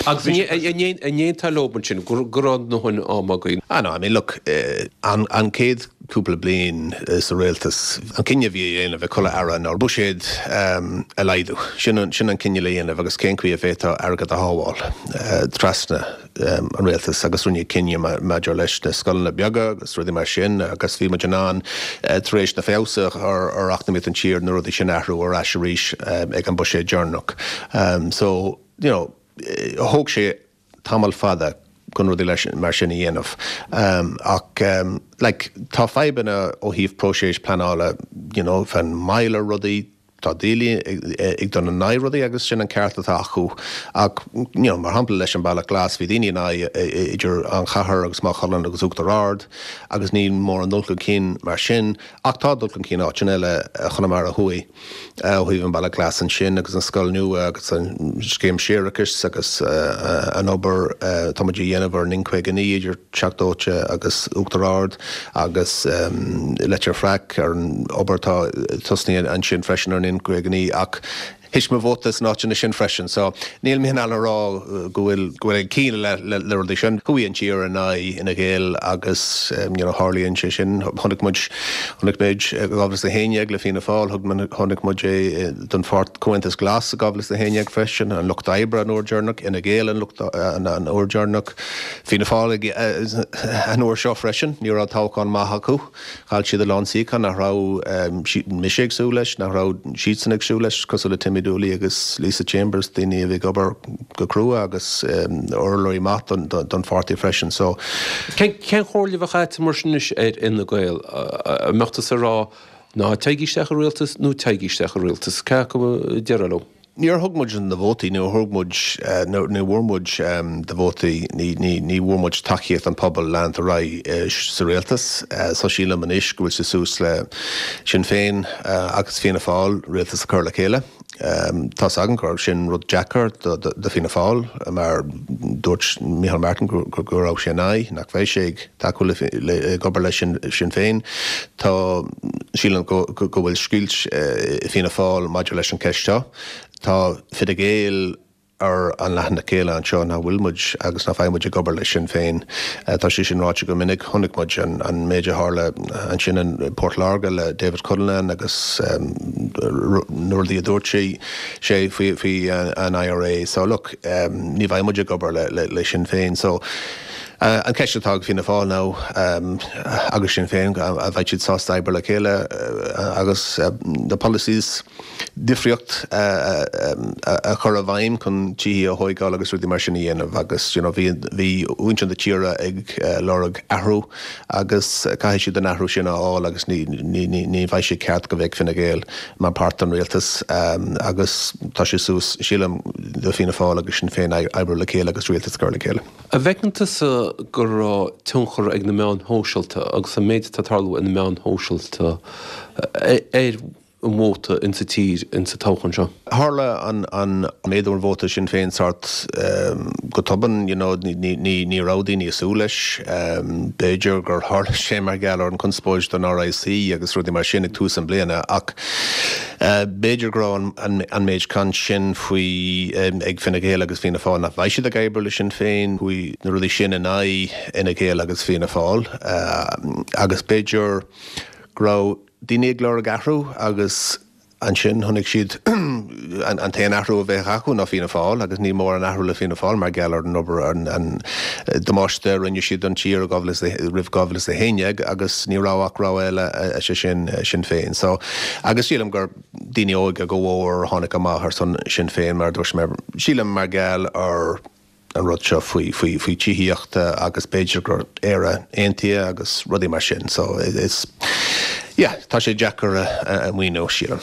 A: Agus an aontófá leo ansin go raibh a ndóthain am againn?
C: Ah no, I mean look, an chéad cúpla bliain sa rialtas, an cinneadh a bhí a dhéanamh ag chuile aire ná buiséad a laghdú. Sin an cinneadh le dhéanamh agus cén chaoi a bhféadfá airgead a shábháil trasna. an rialtas agus rinneadh cinneadh maidir leis na scoileanna beaga agus rudaí mar sin agus bhí muid in ann tar éis na feabhas a chur ar eacnamaíocht an tír na rudaí sin a athrú ar ais arís ag an buiséad deireanach. So, you know, thóg sé tamall fada chun rudaí mar sin a dhéanamh ach like tá fadhbanna ó thaobh próiseas pleanála, you know, fan moill ar rudaí, Tá daoine ag dul in aghaidh rudaí agus sin an ceart atá acu ach you know mar shampla leis an Bealach Glas bhí daoine in aghaidh idir an chathair agus Maigh Cuilinn agus Uachtar Ard agus níl mórán dul chun cinn mar sin ach tá dul chun cinn áiteanna eile Chonamara Thuaidh ó thaobh an Bealach Glas ansin agus an scoil nua agus an scéim séarachais agus an obair atá muid a dhéanamh ar an N59 idir Teach Dóite agus Uachtar Ard agus Leitir Fraic ar an obair atá tosnaithe ansin freisin ar an N59 ach thit mo vóta sna áiteanna sin freisin so níl mé in ann a rá go bhfuil go bhfuil ag cinneadh le le rudaí sin. Chuaigh an tír in aghaidh Fhine Gael agus you know tharlaíonn sé sin. Chonaic muid chonaic muid i 2011 le Fianna Fáil, thug chonaic muid é don pháirt Comhaontas Glas i 2011 freisin, an Lucht Oibre an uair deireanach, Fhine Gael an lucht an uair deireanach. Fianna Fáil an uair seo freisin, ní raibh toghchán maith acu. Chaill siad a lán suíochán nach raibh mise ag súil leis, nach raibh siadsan ag súil leis, cosúil le Timmy Dooley agus Lisa Chambers, daoine a bhí ag obair go crua agus urlabhraí maith don pháirtí freisin. So.
A: Cén chomhairle a bheadh agat mar sin anois ar Fhine Gael? An mbeadh tusa ag rá ná téigí isteach i rialtas nó téigí isteach i rialtas? Cé acu a déarfá leo?
C: Níor thug muid na vótaí, níor thug muid, ní bhfuair muid na vótaí, ní, ní, ní bhfuair muid tacaíocht an pobail leanúint ar aghaidh sa rialtas. So sílim anois go bhfuil sé suas le Sinn Féin agus Fianna Fáil rialtas a chur le chéile. Tá's agam gur sin rud deacair do, do Fianna Fáil mar dúirt Micheál Martin go, go, go raibh sé in aghaidh, nach bheidh sé ag tacú le, le, ag obair le Sinn, Sinn Féin. Tá, sílim go, go, go bhfuil scoilt i Fianna Fáil maidir leis an cheist seo. Tá Fine Gael ar an leathanach eile anseo nach bhfuil muid agus nach bheidh muid ag obair le Sinn Féin. Tá sé sin ráite go minic. Chonaic muid an, an méid a tharla ansin in Port Láirge le David Cullinane agus na rudaí a dúirt sé, sé faoi, faoi an IRA. So look, ní bheidh muid ag obair le, le, le Sinn Féin. So, An ceist atá ag Fianna Fáil ná agus Sinn Féin, an bheidh siad sásta oibriú le chéile agus na policies difríocht a chur i bhfeidhm chun tithe a thóigeáil agus rudaí mar sin a dhéanamh agus you know bhí bhí muintir na tíre ag lorg athrú agus caithfidh siad an athrú sin a fháil agus ní ní ní ní bheidh sé ceart go bheadh Fine Gael mar páirt den rialtas agus tá sé suas sílim do Fianna Fáil agus Sinn Féin oibriú le chéile agus rialtas a chur le chéile.
A: An bhfeiceann tusa go raibh tionchar ag na meáin shóisialta agus an méid atá ag tarlú ar na meáin shóisialta ar an vóta insa tír insa toghchán seo?
C: Tharla an méadú ar vóta Sinn Féin sórt go tobann, you know, ní raibh daoine ag súil leis. B'fhéidir gur tharla sé mar gheall ar an conspóid don RIC agus rudaí mar sin ag tús an bliana ach B'fhéidir go raibh an méid caint sin faoi ag Fine Gael agus Fianna Fáil nach mbeidh siad ag oibriú le Sinn Féin, chuaigh na rudaí sin in aghaidh Fhine Gael agus Fianna Fáil agus b'fhéidir go raibh daoine ag lorg athrú agus ansin chonaic siad an t-aon athrú a bheadh acu ná Fianna Fáil agus níl mórán athrú le Fianna Fáil mar gheall ar an obair an damáiste a rinne siad don tír roimh 2011 agus ní raibh ach rogha eile, sé sin Sinn Féin. So, agus sílim gur daoine óga go mhór a tháinig amach ar son Sinn Féin mar a dúirt mé, sílim mar gheall ar an rud seo faoi, faoi, faoi tithíochta agus b'fhéidir gur Éire Aontaithe agus rudaí mar sin. So, is, yeah, tá sé deacair a mhíniú, sílim.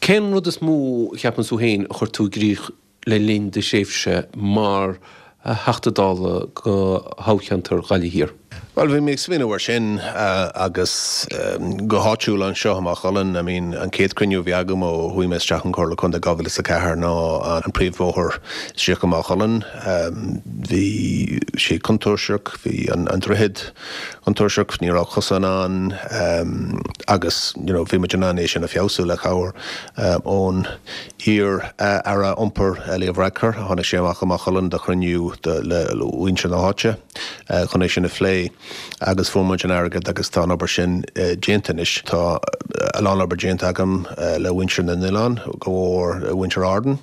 A: Cén rud is mó a cheapann tú féin a chuir tú i gcrích le linn do thréimhse mar Theachta Dála do thoghcheantar Ghaillimh Thiar?
C: Bhuel, bhí mé ag smaoineamh air sin agus go háitiúil anseo i Maigh Cuilinn, I mean, an chéad chruinniú a bhí agam ó chuaigh mé isteach an Chomhairle Contae 2004 ná an príomhbhóthar isteach i Maigh Cuilinn. Bhí sé contúirteach, bhí an droichead contúirteach, ní raibh cosán ann agus, you know, bhí muid in ann é sin a feabhsú le cabhair ón Iar-Aire Iompair Leo Varadkar, tháinig sé amach go Maigh Cuilinn do chruinniú le muintir na háite chun é sin a phlé agus fuair muid an airgead agus tá an obair sin déanta anois. Tá a lán obair déanta agam le muintir na n-oileán, go mhór muintir Árann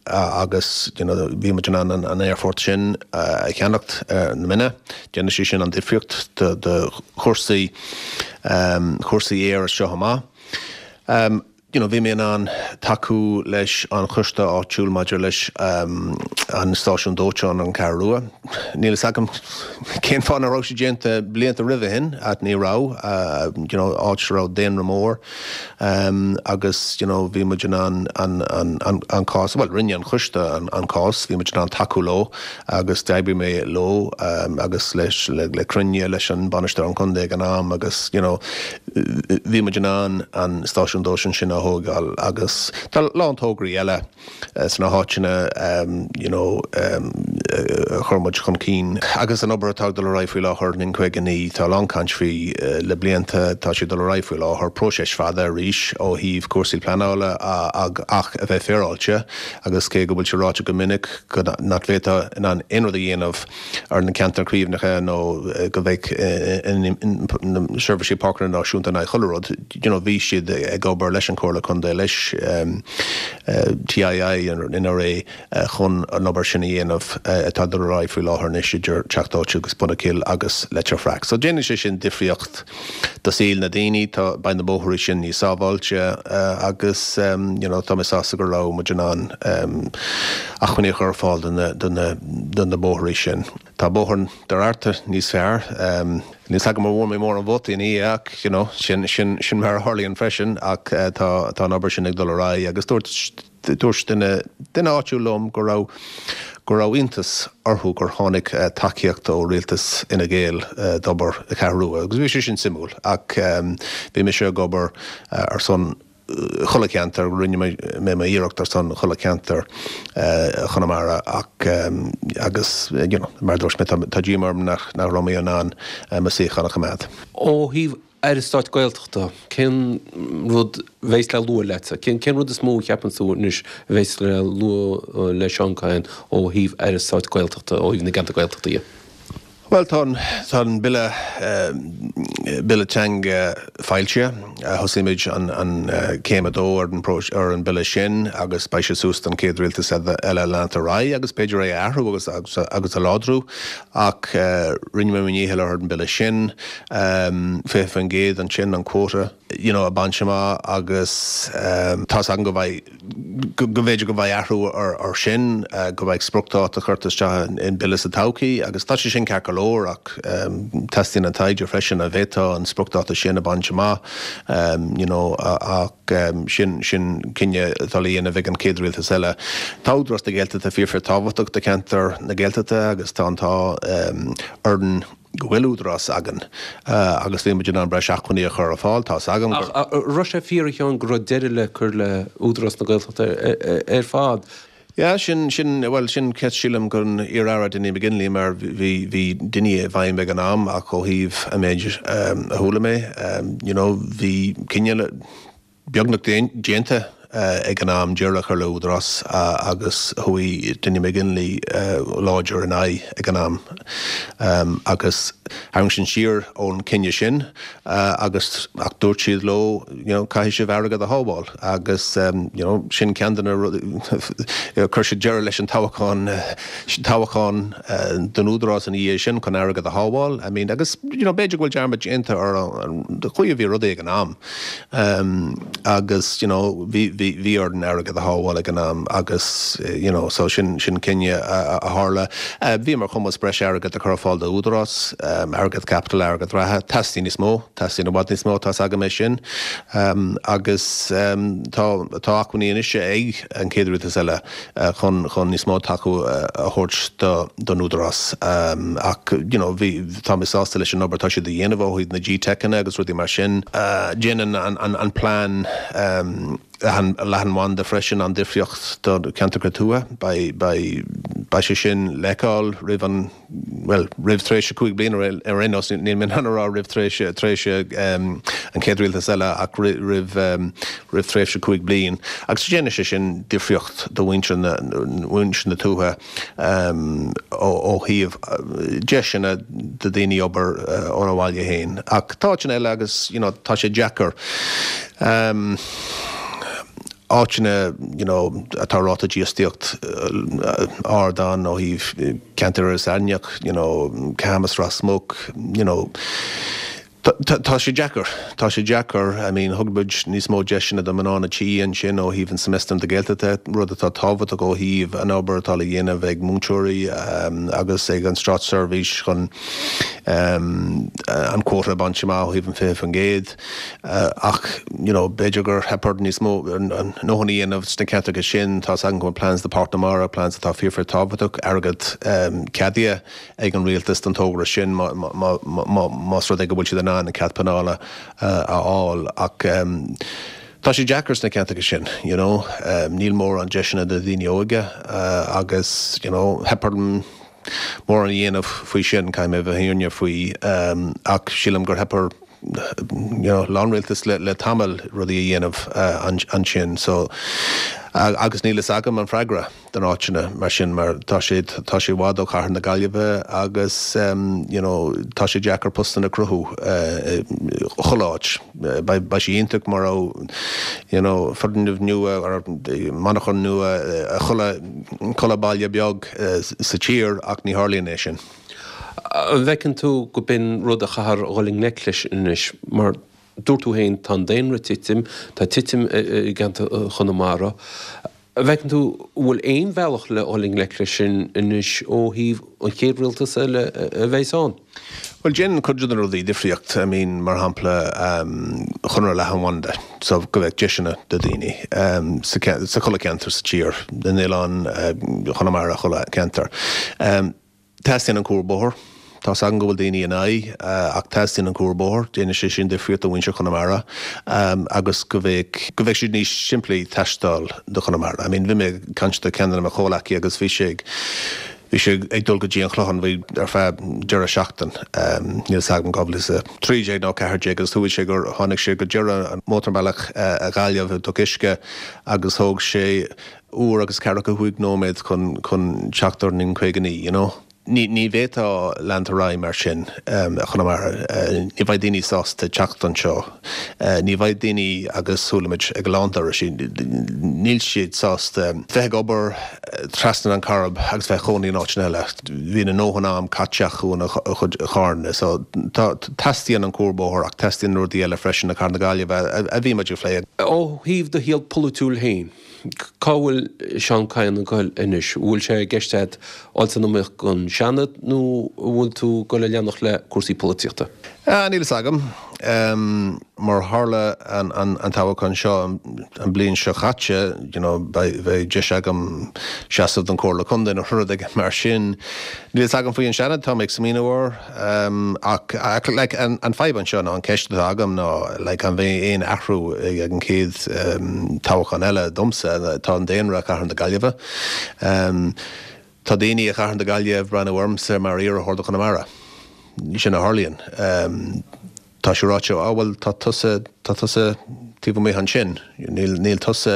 C: agus you know bhí muid in ann an aerfort sin a cheannacht ar na Minna. Déanfaidh sé sin an difríocht do chúrsaí chúrsaí aeir as seo amach. You know, bhí mé in ann tacú leis an choiste áitiúil maidir leis an stáisiún dóiteáin ar an Cheathrú Rua. Níl fhios agam cén fáth nach raibh sé déanta blianta roimhe shin, ach ní raibh, you know, áit a raibh daonra mór agus, you know, bhí muid in ann an, an, an, an cás, bhuel, rinne an choiste an, an cás, bhí muid in ann tacú leo agus d'oibrigh mé leo agus leis, le, le cruinniú leis an bainisteoir an contae ag an am agus, you know, Bhí muid in ann an stáisiún dóiteáin sin a thógáil agus tá a lán tograí eile sna háiteanna you know a chuir muid chun cinn. Agus an obair atá ag dul ar aghaidh faoi láthair in N59, tá a lán caint faoi le blianta, tá sé ag dul ar aghaidh faoi láthair, próiseas fada arís ó thaobh cúrsaí pleanála ach a bheith féaráilte agus cé go bhfuil sé ráite go minic go nach bhféadfá in ann aon rud a dhéanamh ar na ceantair caomhnaithe nó go mbeadh na Seirbhísí Páirceanna Náisiúnta in aghaidh chuile rud, you know, bhí siad ag obair leis an Chomhairle Contae, leis. TII in NRA chun an obair sin a dhéanamh atá ag dul ar aghaidh faoi láthair anois idir Teach Dóite agus Bun an Chill agus Leitir Fraic. So déanann sé sin difríocht do saol na daoine, tá, beidh na bóithre sin níos sábháilte agus you know tá mé sásta go raibh muid in ann acmhainní a chur ar fáil do na, do na, do na bóithre sin. Tá bóthar Doire Fhearta níos fearr. Níl 's agam an bhfuair mé mórán vótaí ina dhiaidh ach you know sin, sin, sin mar a tharlaíonn freisin ach tá, tá an obair sin ag dul ar aghaidh agus dúirt, dúirt duine, duine áitiúil liom go raibh, go raibh iontas orthu gur tháinig tacaíocht ó rialtas Fhine Gael d'obair na Ceathrún Rua agus bhí sé sin suimiúil ach bhí mise ag obair ar son chuile cheantar, rinne mé m'iarracht ar son chuile cheantar Chonamara ach agus you know mar a dúirt mé tá díomá orm nach raibh mé in ann mo suíochán a choimeád.
A: Ó thaobh Aire Stáit Gaeltachta, cén rud a bheas le lua leatsa? Cén rud is mó a cheapann tú anois a bheas le lua le Seán Kyne ó thaobh Aire Stáit Gaeltachta, ó thaobh na gceantar Gaeltachta dhe?
C: Bhuel, tá an, tá an Bille, Bille Teanga foilsithe. Thosaigh muid an, an céim a dó ar an, ar an Bille sin agus beidh sé suas don chéad rialtas eile leanacht ar aghaidh agus b'fhéidir é a athrú agus, agus, agus a láidriú. Ach rinne mé mo dhícheall ar an Bille sin, 20% ansin an quota, you know, a bhaint amach agus tá's agam go mbeidh, go mb'fhéidir go mbeidh athrú ar sin, go mbeidh spriocdháta curtha isteach in bille sa todhchaí agus tá sé sin ceart go leor ach teastaíonn an taighde freisin an bhféadfá an spriocdháta sin a bhaint amach you know ach sin sin cinneadh atá le dhéanamh ag an chéad rialtas eile. Tá Údarás na Gaeltachta fíor fíor tábhachtach do cheantar na Gaeltachta agus tá an t-ádh orainn go bhfuil údarás againn agus bhí muid in ann breis acmhainní a chur ar fáil. Tá's agam
A: gur. Ach an raibh sé fíor a Sheáin go raibh deireadh le cur le Údarás na Gaeltachta ar fad?
C: Yeah, sin, sin, bhuel, sin ceist sílim don iar-aire Dinny McGinley mar bhí, bhí Dinny i bhfeidhm ag an am ach ó thaobh an méid a chuala mé, you know, bhí cinneadh le, beagnach déanta ag an am deireadh a chur le Údarás agus chuaigh Dinny McGinley láidir ina aghaidh ag an am agus tharraing siad siar ón cinneadh sin agus ach dúirt siad leo you know caithfidh sibh airgead a shábháil agus you know sin ceann de na rudaí chuir siad deireadh leis an toghchán toghchán don Údarás ina dhiaidh sin chun airgead a shábháil I mean agus you know b'fhéidir go bhfuil dearmad déanta ar an chaoi a bhí rudaí ag an am. Agus you know bhí, bhí, bhí orainn airgead a shábháil ag an am agus you know so sin, sin cinneadh a, a tharla. Bhí ar chumas breis airgead a chur ar fáil do Údarás, airgead caipitil, airgead reatha. Teastaíonn níos mó, teastaíonn i bhfad níos mó, tá's agam é sin. Agus tá, tá acmhainní anois ag an chéad rialtas eile chun, chun níos mó tacú a thabhairt do, don Údarás. Ach you know bhí, Tá mé sásta leis an obair atá siad a dhéanamh ó thaobh na GTeiceanna agus rudaí mar sin. Déanann an plean leathanbhanda freisin an difríocht do cheantracha tuaithe. Beidh sé sin le feiceáil roimh an, bhuel, roimh tréimhse 5 bliana ar aon nós. Níl mé in ann a rá roimh tréimhse an chéad rialtas eile ach roimh tréimhse 5 bliain. Agus déanann sé sin difríocht do mhuintir na tuaithe. ó thaobh deiseanna do daoine obair óna bhaile féin. Ach tá áiteanna eile agus you know tá sé deacair. Áiteanna you know atá ráta dífhostaíocht ard ann ó thaobh ceantar Iorras Aithneach, you know Camas, Ros Muc, you know. Tá sé deacair. Tá sé deacair. I mean, thug muid níos mó deiseanna do mná na tí ansin ó thaobh an Semester na Gaeltachta, rud atá tábhachtach ó thaobh an obair atá le dhéanamh ag múinteoirí agus ag an státseirbhís chun an quota a bhaint amach ó thaobh an 20%. Ach, you know, b'fhéidir gur theip orainn níos mó a ndóthain a dhéanamh sna ceantracha sin. Tá's agam go bhfuil plans do Pháirc na Mara, plans atá fíor fíor tábhachtach, airgead ceadaithe. ag an rialtas don togra sin más rud é go bhfuil siad in ann an cead pleanála a fháil ach tá sé deacair sna ceantracha sin you know níl mórán deiseanna do dhaoine óga agus you know theip orm mórán a dhéanamh faoi sin caithfidh mé a bheith fírinneach faoi ach sílim gur theip ar you know a lán rialtas le tamall rudaí a dhéanamh ansin so. Agus níl fhios agam an freagra don áiteanna mar sin mar tá sé tá sé i bhfad ó chathair na Gaillimhe agus you know tá sé deacair postanna a cruthú chuile áit. Beidh sé iontach má raibh you know foirgneamh nua or monarchan nua i chuile chuile baile beag sa tír ach ní tharlaíonn é sin.
A: An bhfeiceann tú go b'in rud a chaithfear a dhul i ngleic leis anois mar Dúirt tú féin, tá an daonra ag titim, tá titim i gceantar Chonamara. An bhfeiceann tú, an bhfuil aon bhealach le dhul i ngleic leis sin anois ó thaobh an chéad rialtas eile a bheas ann?
C: Bhuel, déanann cuid de na rudaí difríocht. I mean, mar shampla, Conradh Leathanbhanda, so go mbeadh deiseanna do daoine sa chuile ceantar sa tír, na n-oileán, Chonamara, chuile ceantar. Teastaíonn an cuarbhóthar. Tá's agam go bhfuil daoine in aghaidh, ach teastaíonn an cuarbhóthar. Déanann sé sin difríocht do mhuintir Chonamara agus go mbeadh, go mbeadh sé níos simplí taisteal do Chonamara. I mean, bhí mé ag caint do ceann de mo chomhleacaí agus bhí sé ag, bhí sé ag dul go dtí an Chlochán, bhí ar feadh deireadh seachtain, níl 's agam, 2013 nó 14 agus dúirt sé gur tháinig sé go deireadh an mótarbhealach i Gaillimh i dToc Uisce agus thóg sé uair agus ceathracha chúig nóiméad chun chun teacht ar an N59, you know. Ní ní bhféadfá leanúint ar aghaidh mar sin i Chonamara. Ní bheidh daoine sásta teacht anseo. Ní bheidh daoine agus chuala muid ag a lán turais, níl siad sásta bheith ag obair trasna an Chairib agus bheith ag cónaí in áiteanna eile. Bíonn a ndóthain am caite acu ina chuid carranna. So tá teastaíonn an cuarbhóthar ach teastaíonn rudaí eile freisin i Cathair na Gaillimhe a bhí muid ag plé.
A: Ó thaobh do shaol polaitiúil féin, Cá bhfuil Seán Kyne ag goil anois? An bhfuil sé i gceist agat dul san iomaíocht don Seanad nó an bhfuil tú ag goil a leanacht le cúrsaí polaitíochta?
C: Níl fhios agam. Mar tharla an toghchán seo an bliain seo chaite, you know, beidh deis agam seasamh don Chomhairle Contae nó rud éigin mar sin. Níl fhios agam faoi an Seanad, tá mé ag smaoineamh air. Ach like an fadhb anseo ná an ceist atá agam ná like an mbeidh aon athrú ag an chéad toghchán eile domsa? Tá an daonra i Cathair na Gaillimhe. Tá daoine i Cathair na Gaillimhe ag breathnú ormsa mar iarrthóir do Chonamara. Sin a tharlaíonn. Tá sé ráite, á bhuel tá tusa, tá tusa taobh amuigh ansin, níl, níl tusa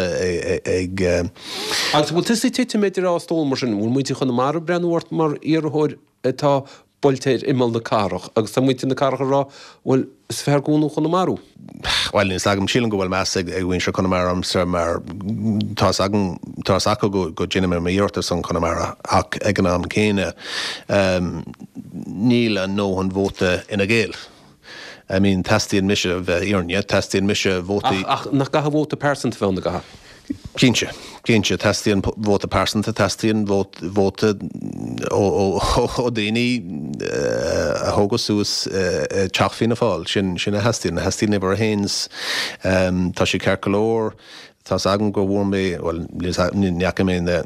C: ag.
A: Agus an bhfuil tusa ag titim idir dhá stól mar sin? An bhfuil muintir Chonamara ag breathnú ort mar iarrthóir atá buailte ar imeall na cathrach agus tá muintir na cathrach ag rá, bhuel, is fearr gabháil ó Chonamara.
C: Bhuel, níl 's agam, sílim go bhfuil meas ag mhuintir Chonamara ormsa mar tá 's agam, tá 's acu go go déanaim m'iarracht ar son Chonamara ach ag an am céanna níl a ndóthain vóta Fhine Gael. I mean, teastaíonn mise, bheith fhírinne, teastaíonn mise vótaí.
A: Ach, ach nach gcaithfidh vóta pearsanta bheith ann, an gcaithfidh?
C: Cinnte, cinnte, teastaíonn vóta pearsanta, teastaíonn vóta ó, ó, ó daoine a tógadh suas i dteach Fianna Fáil, sin, sin a theastaíonn, theastaíonn uimhir a haons. Tá sé ceart go leor Tá's agam go bhfuair mé, bhuel, ní fhaca mé na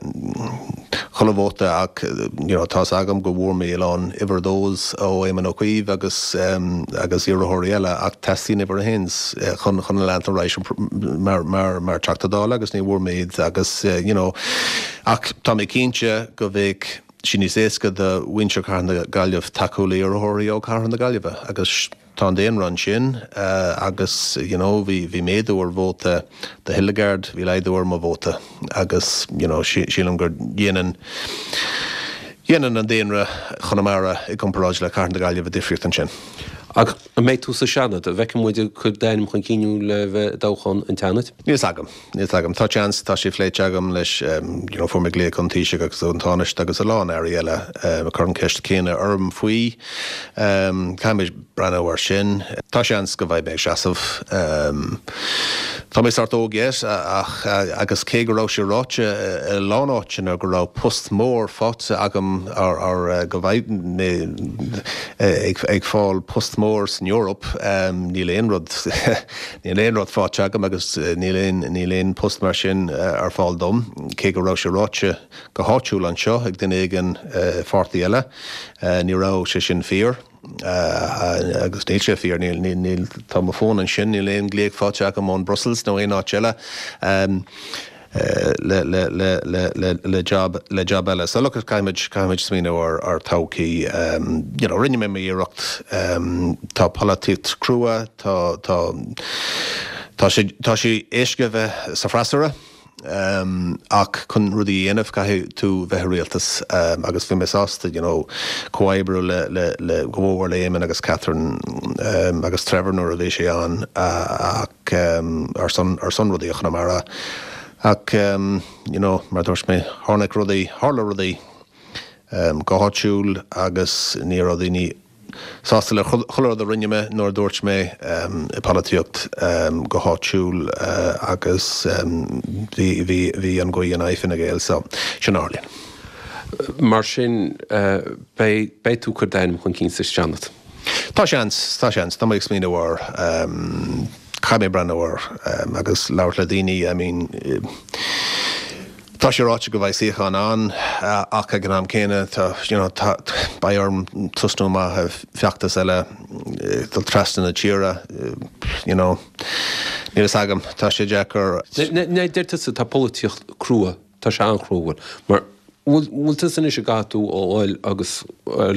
C: chuile vóta ach you know tá's agam go bhfuair mé a lán uimhir a dós ó Éamon Ó Cuív agus agus iarrthóirí eile ach teastaíonn uimhir a haons chun chun leanacht ar aghaidh mar mar mar Teachta Dála agus ní bhfuair mé iad agus you know ach tá mé cinnte go bheadh sé níos éasca do mhuintir Chathair na Gaillimhe tacú le iarrthóirí ó Chathair na Gaillimhe agus Tá an daonra ansin agus you know bhí bhí méadú ar vóta do Hildegarde, bhí laghdú ar mo vóta agus you know sílim gur dhéanann dhéanann an daonra Chonamara i gcomparáid le Cathair na Gaillimhe difríocht ansin.
A: Ach an mbeidh tú sa Seanad? An bhfeicfidh muid ag cur d'ainm chun cinn thú le bheith i dtoghchán an tSeanaid?
C: Níl 's agam. Níl 's agam. Tá seans, tá sé phléite agam leis, you know, fuair mé glaoch ón Taoiseach agus ón Tánaiste agus a lán airí eile ag cur an ceist céanna orm faoi. Caithfidh mé breathnú air sin. Tá seans go mbeidh mé ag seasamh. Tá mé sórt óg yet ach, agus cé go raibh sé ráite i a lán áiteanna go raibh post mór faighte agam or go mbeidh mé ag fáil post mór san Eoraip, níl aon rud, Níl aon rud faighte agam agus níl aon, níl aon post mar sin ar fáil dom, cé go raibh sé ráite go háitiúil anseo ag duine éigin i pháirtí eile. Ní raibh sé sin fíor agus níl sé fíor. Níl, níl, níl, tá mo fón ansin, níl aon glaoch faighte agam ón Brussels nó aon áit eile. Le le le le le le job le job eile. So look caithfimid caithfimid smaoineamh ar ar todhchaí. You know rinne mé m'iarracht. Tá polaitíocht crua, tá tá tá sé tá sé éasca bheith sa freasúra. Ach chun rudaí a dhéanamh caithfidh tú bheith i rialtas agus bhí mé sásta you know comhoibriú le le le go mhór le Éamon agus Catherine agus Trevor nuair a bhí sé ann ach ar son ar son rudaí i Chonamara ach you know mar a dúirt mé tháinig rudaí tharla rudaí go háitiúil agus ní raibh daoine sásta le chuile rud a rinne mé nuair a dúirt mé i polaitíocht go háitiúil agus bhí bhí bhí an ghaoth in aghaidh Fine Gael so sin a tharlaíonn.
A: Mar sin beidh beidh tú ag cur d'ainm chun cinn sa Seanad?
C: Tá seans, tá seans. Tá mé ag smaoineamh air. Caithfidh mé breathnú air agus labhairt le daoine I mean Tá sé ráite go bheidh suíochán ann ach ag an am céanna tá, you know, tá, beidh orm tosnú amach i feachtas eile, dul trasna na tíre, you know, níl fhios agam, tá sé deacair.
A: Deir tusa tá polaitíocht crua, tá sé an-chrua, bhfuil, mar, bhfuil, bhfuil tusa anois ag caithfidh tú a fháil agus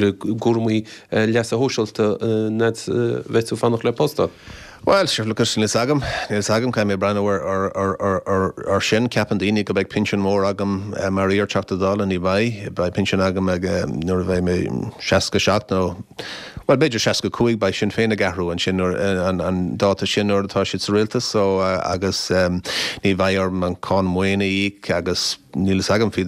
A: le cúramaí leasa shóisialta an fhad a bheidh tú ag fanacht le post a.
C: Bhuel, sure, look, níl fhios agam, níl fhios agam, caithfidh mé breathnú ar sin. Ceapann daoine go mbeidh pinsean mór agam mar iar-Teachta Dála, ní bheidh. Beidh pinsean agam ag, nuair a bheidh mé 67 nó, bhuel, b'fhéidir 65, beidh Sinn Féin ag athrú ansin nuair, an dáta sin nuair atá siad sa rialtas, so, agus ní bheidh orm an cáin maoine a íoc agus, Níl fhios agam faoi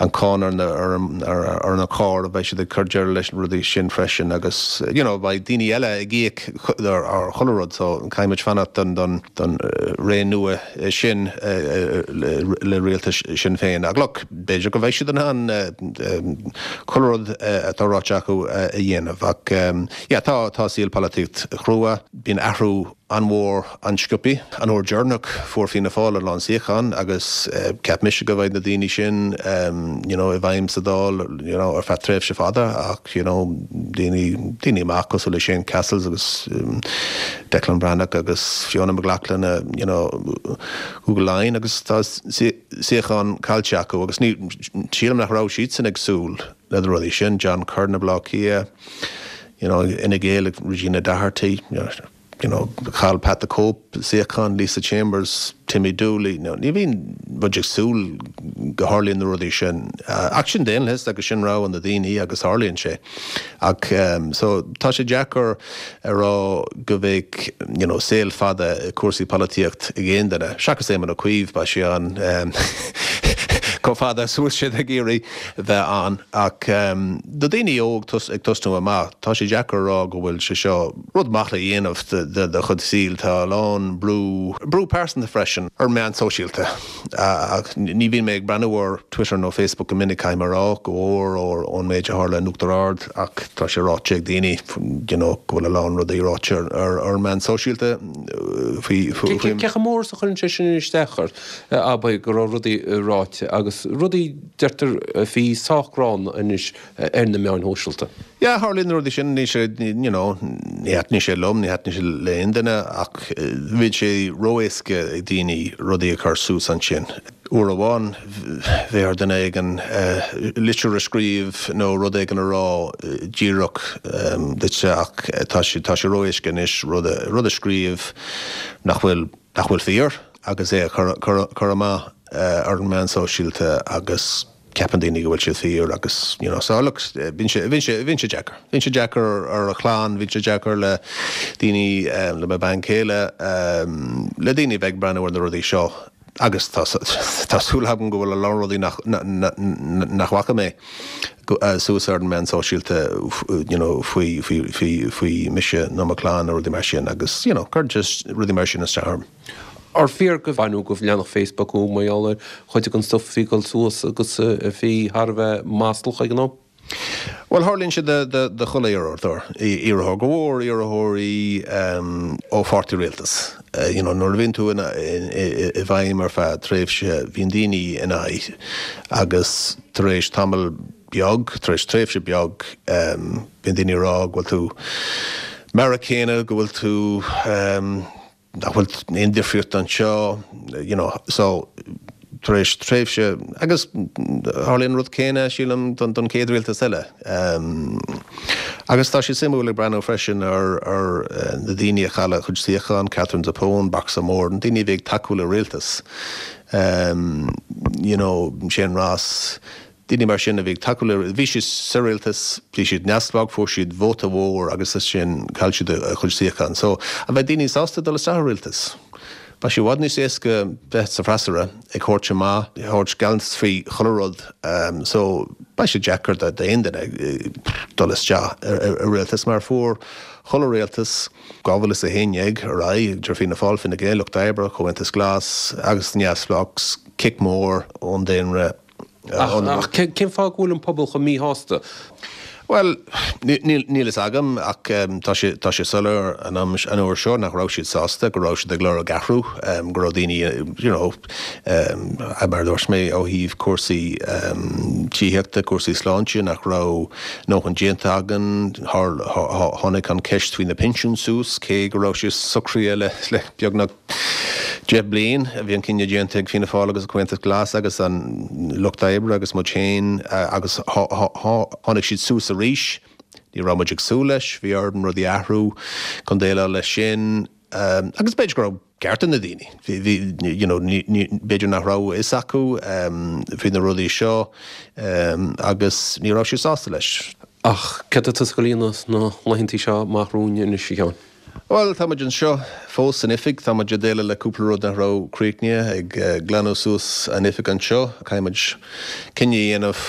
C: an cáin ar ar na cairr, beidh siad ag cur deireadh leis na rudaí sin freisin agus you know beidh daoine eile ag íoc ar chuile rud so caithfidh muid fanacht don don don ré nua sin le rialtas Sinn Féin. Ach look, b'fhéidir go mbeidh siad in ann chuile rud atá ráite acu a dhéanamh ach yeah tá tá saol polaitíocht chrua, bíonn athrú an-mhór an-sciobtha. An uair deireanach fuair Fianna Fáil a lán suíochán agus cheap mise go mbeidh na daoine sin you know i bhfeidhm sa Dáil you know ar feadh tréimhse fada ach you know daoine daoine amach cosúil le Shane Cassells agus Declan Breathnach agus Fiona McLaughlin you know Cúige Laighean agus tá suíochán caillte acu agus ní sílim nach raibh siadsan ag súil le na rudaí sin John Curran i Baile Átha Cliath you know Fhine Gael ag Regina Doherty you know you know, chaill Pat the Cope suíochán, Lisa Chambers, Timmy Dooley, you know, ní bhíonn muid ag súil go tharlaíonn na rudaí sin. Ach sin daonlathas agus sin rogha na daoine agus tarlaíonn sé. Ach so tá sé deacair a rá go bheidh, you know, saol fada i cúrsaí polaitíocht ag aon duine, seachas Éamon Ó Cuív, beidh sé ann chomh fada is a bhfuil siad ag iarraidh bheith ann. Ach do daoine óg ag tosnú amach, tá sé deacair a rá go bhfuil sé seo rud maith le dhéanamh de do chuid saoil. Tá a lán brú, brú pearsanta freisin, ar meáin sóisialta. Ach ní bhíonn mé ag breathnú ar Twitter nó Facebook go minic, caithfidh mé a rá, go mhór ón méid a tharla in Uachtar Ard ach tá sé ráite ag daoine you know go bhfuil a lán rudaí ráite ar ar meáin sóisialta faoi, faoi.
A: Cé chomh mór is a chuireann sé sin isteach ort, abair, go raibh rudaí ráite agus rudaí, deirtear, a bhí sách gránna anois ar na meáin shóisialta.
C: Yeah, tharlaíonn na rudaí sin, ní sé, you know, ní thaitníonn sé liom, ní thaitníonn sé le aon duine ach bíonn sé ró-éasca ag daoine rudaí a chur suas ansin. Uair amháin bheadh ar duine éigin litir a scríobh nó rud éigin a rá díreach duitse ach tá sé, tá sé ró-éasca anois rud a, rud a scríobh nach bhfuil, nach bhfuil fíor agus é a chur, chur, chur amach ar an meán sóisialta agus. ceapann daoine go bhfuil siad fíor agus you know so look bíonn sé bíonn sé bíonn sé deacair. Bíonn sé deacair ar a chlann, bíonn sé deacair le daoine le mo bhean chéile le daoine a bheith ag breathnú ar na rudaí seo agus tá tá súil agam go bhfuil a lán rudaí nach nach bhfaca mé suas ar an meán sóisialta you know faoi faoi faoi faoi mise nó mo chlann nó rudaí mar sin agus you know cuireann sé rudaí mar sin isteach orm.
A: Ar fíor go baineadh go leathanach Facebook uaidh mar gheall ar chuid den stuff a bhí ag dul suas agus a bhí thar a bheith maslach ag an am?
C: Bhuel, tharlaíonn sé do chuile iarrthóir, iarrthóir, go mhór iarrthóirí ó pháirtí rialtais. You know, nuair a bhíonn tú i bhfeidhm ar feadh tréimhse, bíonn daoine in aghaidh agus tar éis tamall beag, tar éis tréimhse beag, bíonn daoine ag rá go bhfuil tú mar a chéanna, go bhfuil tú. nach bhfuil aon difríocht anseo, you know, so tar éis tréimhse, agus tharlaíonn an rud céanna, sílim, don don chéad rialtas eile. Agus tá sé suimiúil ag breathnú freisin ar ar na daoine a chaill a chuid suíochán, Katherine Zappone, Boxer Moore, na daoine a bhí ag tacú le rialtas. You know, Shane Ross, daoine mar sin a bhí ag tacú le, bhí siad sa rialtas, bhí siad neamhspleách, fuair siad vóta mhór agus as sin chaill siad a chuid suíochán. So, an bheidh daoine sásta dul isteach i rialtas? Beidh sé i bhfad níos éasca bheith sa bhfreasúra, ag thabhairt amach, ag thabhairt gealltanas faoi chuile rud. So, beidh sé deacair d'aon duine dul isteach i rialtas mar fuair chuile rialtas, 2011 ar aghaidh, idir Fianna Fáil, Fine Gael, Lucht Oibre, Comhaontas Glas agus Neamhspleách, cic mór ón daonra.
A: Ach cén fáth go bhfuil an pobal chomh míshásta?
C: Bhuel, níl fhios agam ach tá sé tá sé soiléir an am an uair seo nach raibh siad sásta, go raibh siad ag lorg athrú, go raibh daoine you know mar a dúirt mé ó thaobh cúrsaí tithíochta, cúrsaí sláinte nach raibh a ndóthain déanta againn, tháinig an ceist faoi na pinsiúin suas cé go raibh sé socraithe le le beagnach 10 bliain a bhí an cinneadh déanta ag Fianna Fáil agus an Comhaontas Glas agus an Lucht Oibre agus muid féin agus tháinig siad suas arís. Ní raibh muid ag súil leis, bhí orainn rudaí a athrú chun déileáil leis sin agus b'fhéidir go raibh ceart ag na daoine, bhí, you know, b'fhéidir nach raibh a fhios acu faoi na rudaí seo agus ní raibh siad sásta leis.
A: Ach céard atá tusa ag dul a dhéanamh sna laethantaí seo amach romhainn anois, a Sheáin?
C: Bhuel, tá muid anseo fós san oifig. Tá muid ag déileáil le cúpla rud nach raibh críochnaithe, ag glanadh suas an oifig anseo. Caithfidh muid cinneadh a dhéanamh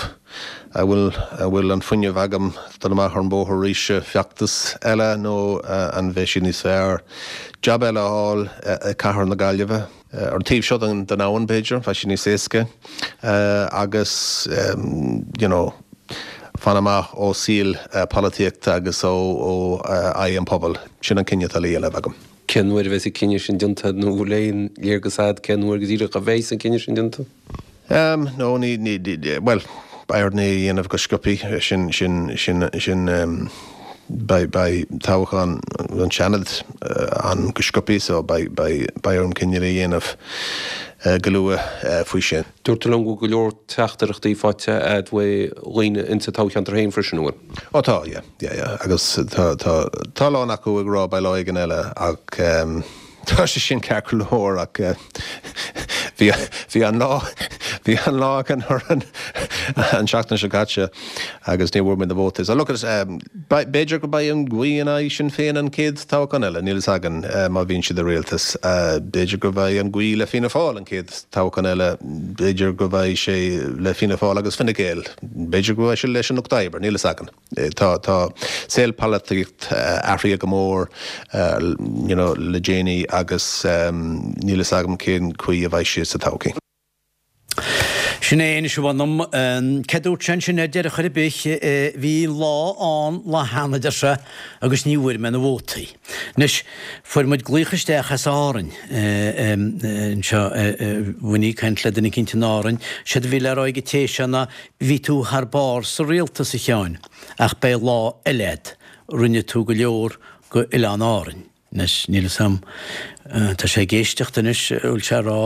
C: an bhfuil an bhfuil an fuinneamh agam dul amach ar an bóthar arís i bhfeachtas eile nó an bheidh sé níos fearr jab eile a fháil i cathair na Gaillimhe. Ar an taobh seo den abhainn, b'fhéidir, bheadh sé níos éasca agus you know fan amach ó saol polaitíochta agus ó aghaidh an pobail. Sin an cinneadh atá le dhéanamh agam.
A: Cén uair a bheas an cinneadh sin déanta nó bhfuil aon léargas agat cén uair go díreach a bheas an cinneadh sin déanta?
C: Em, no, ní, ní, bhuel, beidh orainn é a dhéanamh go sciobthaí, sin, sin, sin, sin, em, beidh, beidh toghchán an Seanad ann go sciobthaí so beidh, beidh, beidh orm cinneadh a dhéanamh go luath faoi sin.
A: Dúirt tú liom go bhfuil go leor teachtaireachtaí faighte a'd uaidh dhaoine insa toghcheantar féin freisin, an bhfuil?
C: Ó tá, yeah, yeah, yeah, agus tá, tá, tá a lán acu ag rá beidh lá éigin eile ach, em, Tá sé sin ceart go leor ach bhí bhí an lá bhí an lá againn orainn an seachtain seo caite agus ní bhfuair muid na vótaí. So look at b'fhéidir go beidh an ghaoth in aghaidh Sinn Féin an chéad toghchán eile, níl fhios againn má bhíonn siad i rialtas. B'fhéidir go mbeidh an ghaoth le Fianna Fáil an chéad toghchán eile, b'fhéidir go mbeidh sé le Fianna Fáil agus Fine Gael, b'fhéidir go mbeidh sé leis an Lucht Oibre, níl fhios againn. Tá tá saol polaitíocht athraithe go mór you know le déanaí agus níl fhios agam cén chaoi a bheidh sé sa todhchaí.
B: Sin é anois a mh'anam. Céard dúirt sé ansin ar deireadh chor ar bith? Bhí lá ann lá cheana, a deir sé, agus ní bhfuair mé na vótaí. Anois, fuair muid glaoch isteach as Árainn anseo, bhí ag caint le duine eicínt in Árainn. Séard a bhí le rá ag an té seo ná Bhí tú thar barr sa rialtas, a Sheáin, ach beidh lá eile a'd. Rinne tú go leor go Oileán Árainn. Anois, níl fhios a'm, tá sé ag éisteacht anois, an bhfuil sé a rá,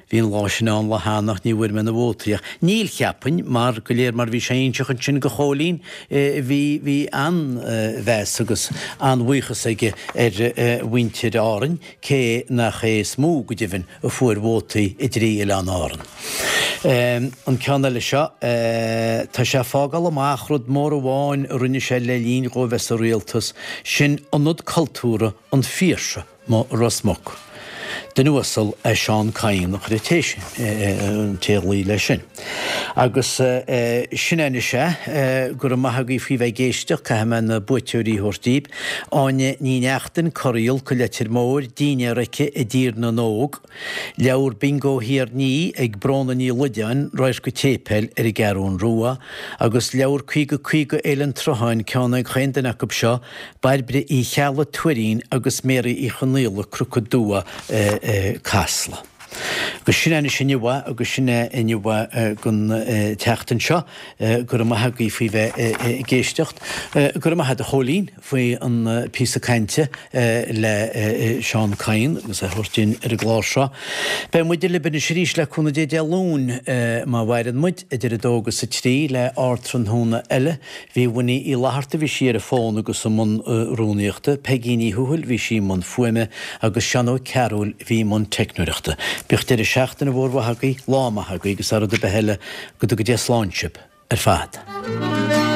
B: bhí an lá sin ann lá cheana ach ní bhfuair mé na vótaí ach níl, cheapfainn, mar go léir mar bhí sé a inseacht ansin go Chóilín, bhí, bhí an-mheas agus an-bhuíochas aige ar mhuintir Árainn, cé nach é is mó, go deimhin, a fuair vótaí i dtrí oileán Árann. An ceann eile seo, tá sé ag fágáil amach rud mór amháin a rinne sé le linn dhó bheith sa rialtas, sin Ionad Cultúrtha an Phiarsaigh amuigh i Ros Muc. Duine uasal é Seán Kyne a chuir an té sin, an té a ghlaoigh leis sin. Agus sin é anois é, go raibh maith agaibh faoi bheith ag éisteacht, caithfidh mé na buaiteoirí a thabhairt daoibh. Áine Ní Neachtain, Corraíol, Co Leitir Móir, Dinnéar aici i dTír na nÓg. Leabhar Bingo Thiar Ní ag Bróna Ní Loideáin, Radharc an tSéipéil ar an gCeathrún Rua, agus leabhar 50 50 Fhéile an tSrutháin, ceann ag chaon duine acu seo, Bairbre Uí Cheallaigh, Tuairín agus Mary Uí Chonaola, Cnoc an Dua, Casla. Agus sin é anois inniu é agus sin é inniu é don tseachtain seo. Go raibh maith agaibh faoi bheith ag éisteacht. Go raibh maith agat a Chóilín faoi an píosa cainte le Seán Kyne agus é a thabhairt dúinn ar an gclár seo. Beidh muide libh anois arís le cúnamh Dé Dé Luain má mhaireann muid, idir 2 agus 3 le Ardtráthnóna eile. Bhí Winnie Uí Fhlatharta, bhí sí ar an bhfón agus i mbun rúnaíochta, Peigí Ní Thuathail, bhí sí i mbun fuaime, agus Seán Ó Cearúil, bhí i mbun teicneoireachta. Bíodh deireadh seachtaine mhór mhaith agaibh, lá maith agaibh agus thar rud ar bith eile, go dtuga Dia slán sibh ar fad.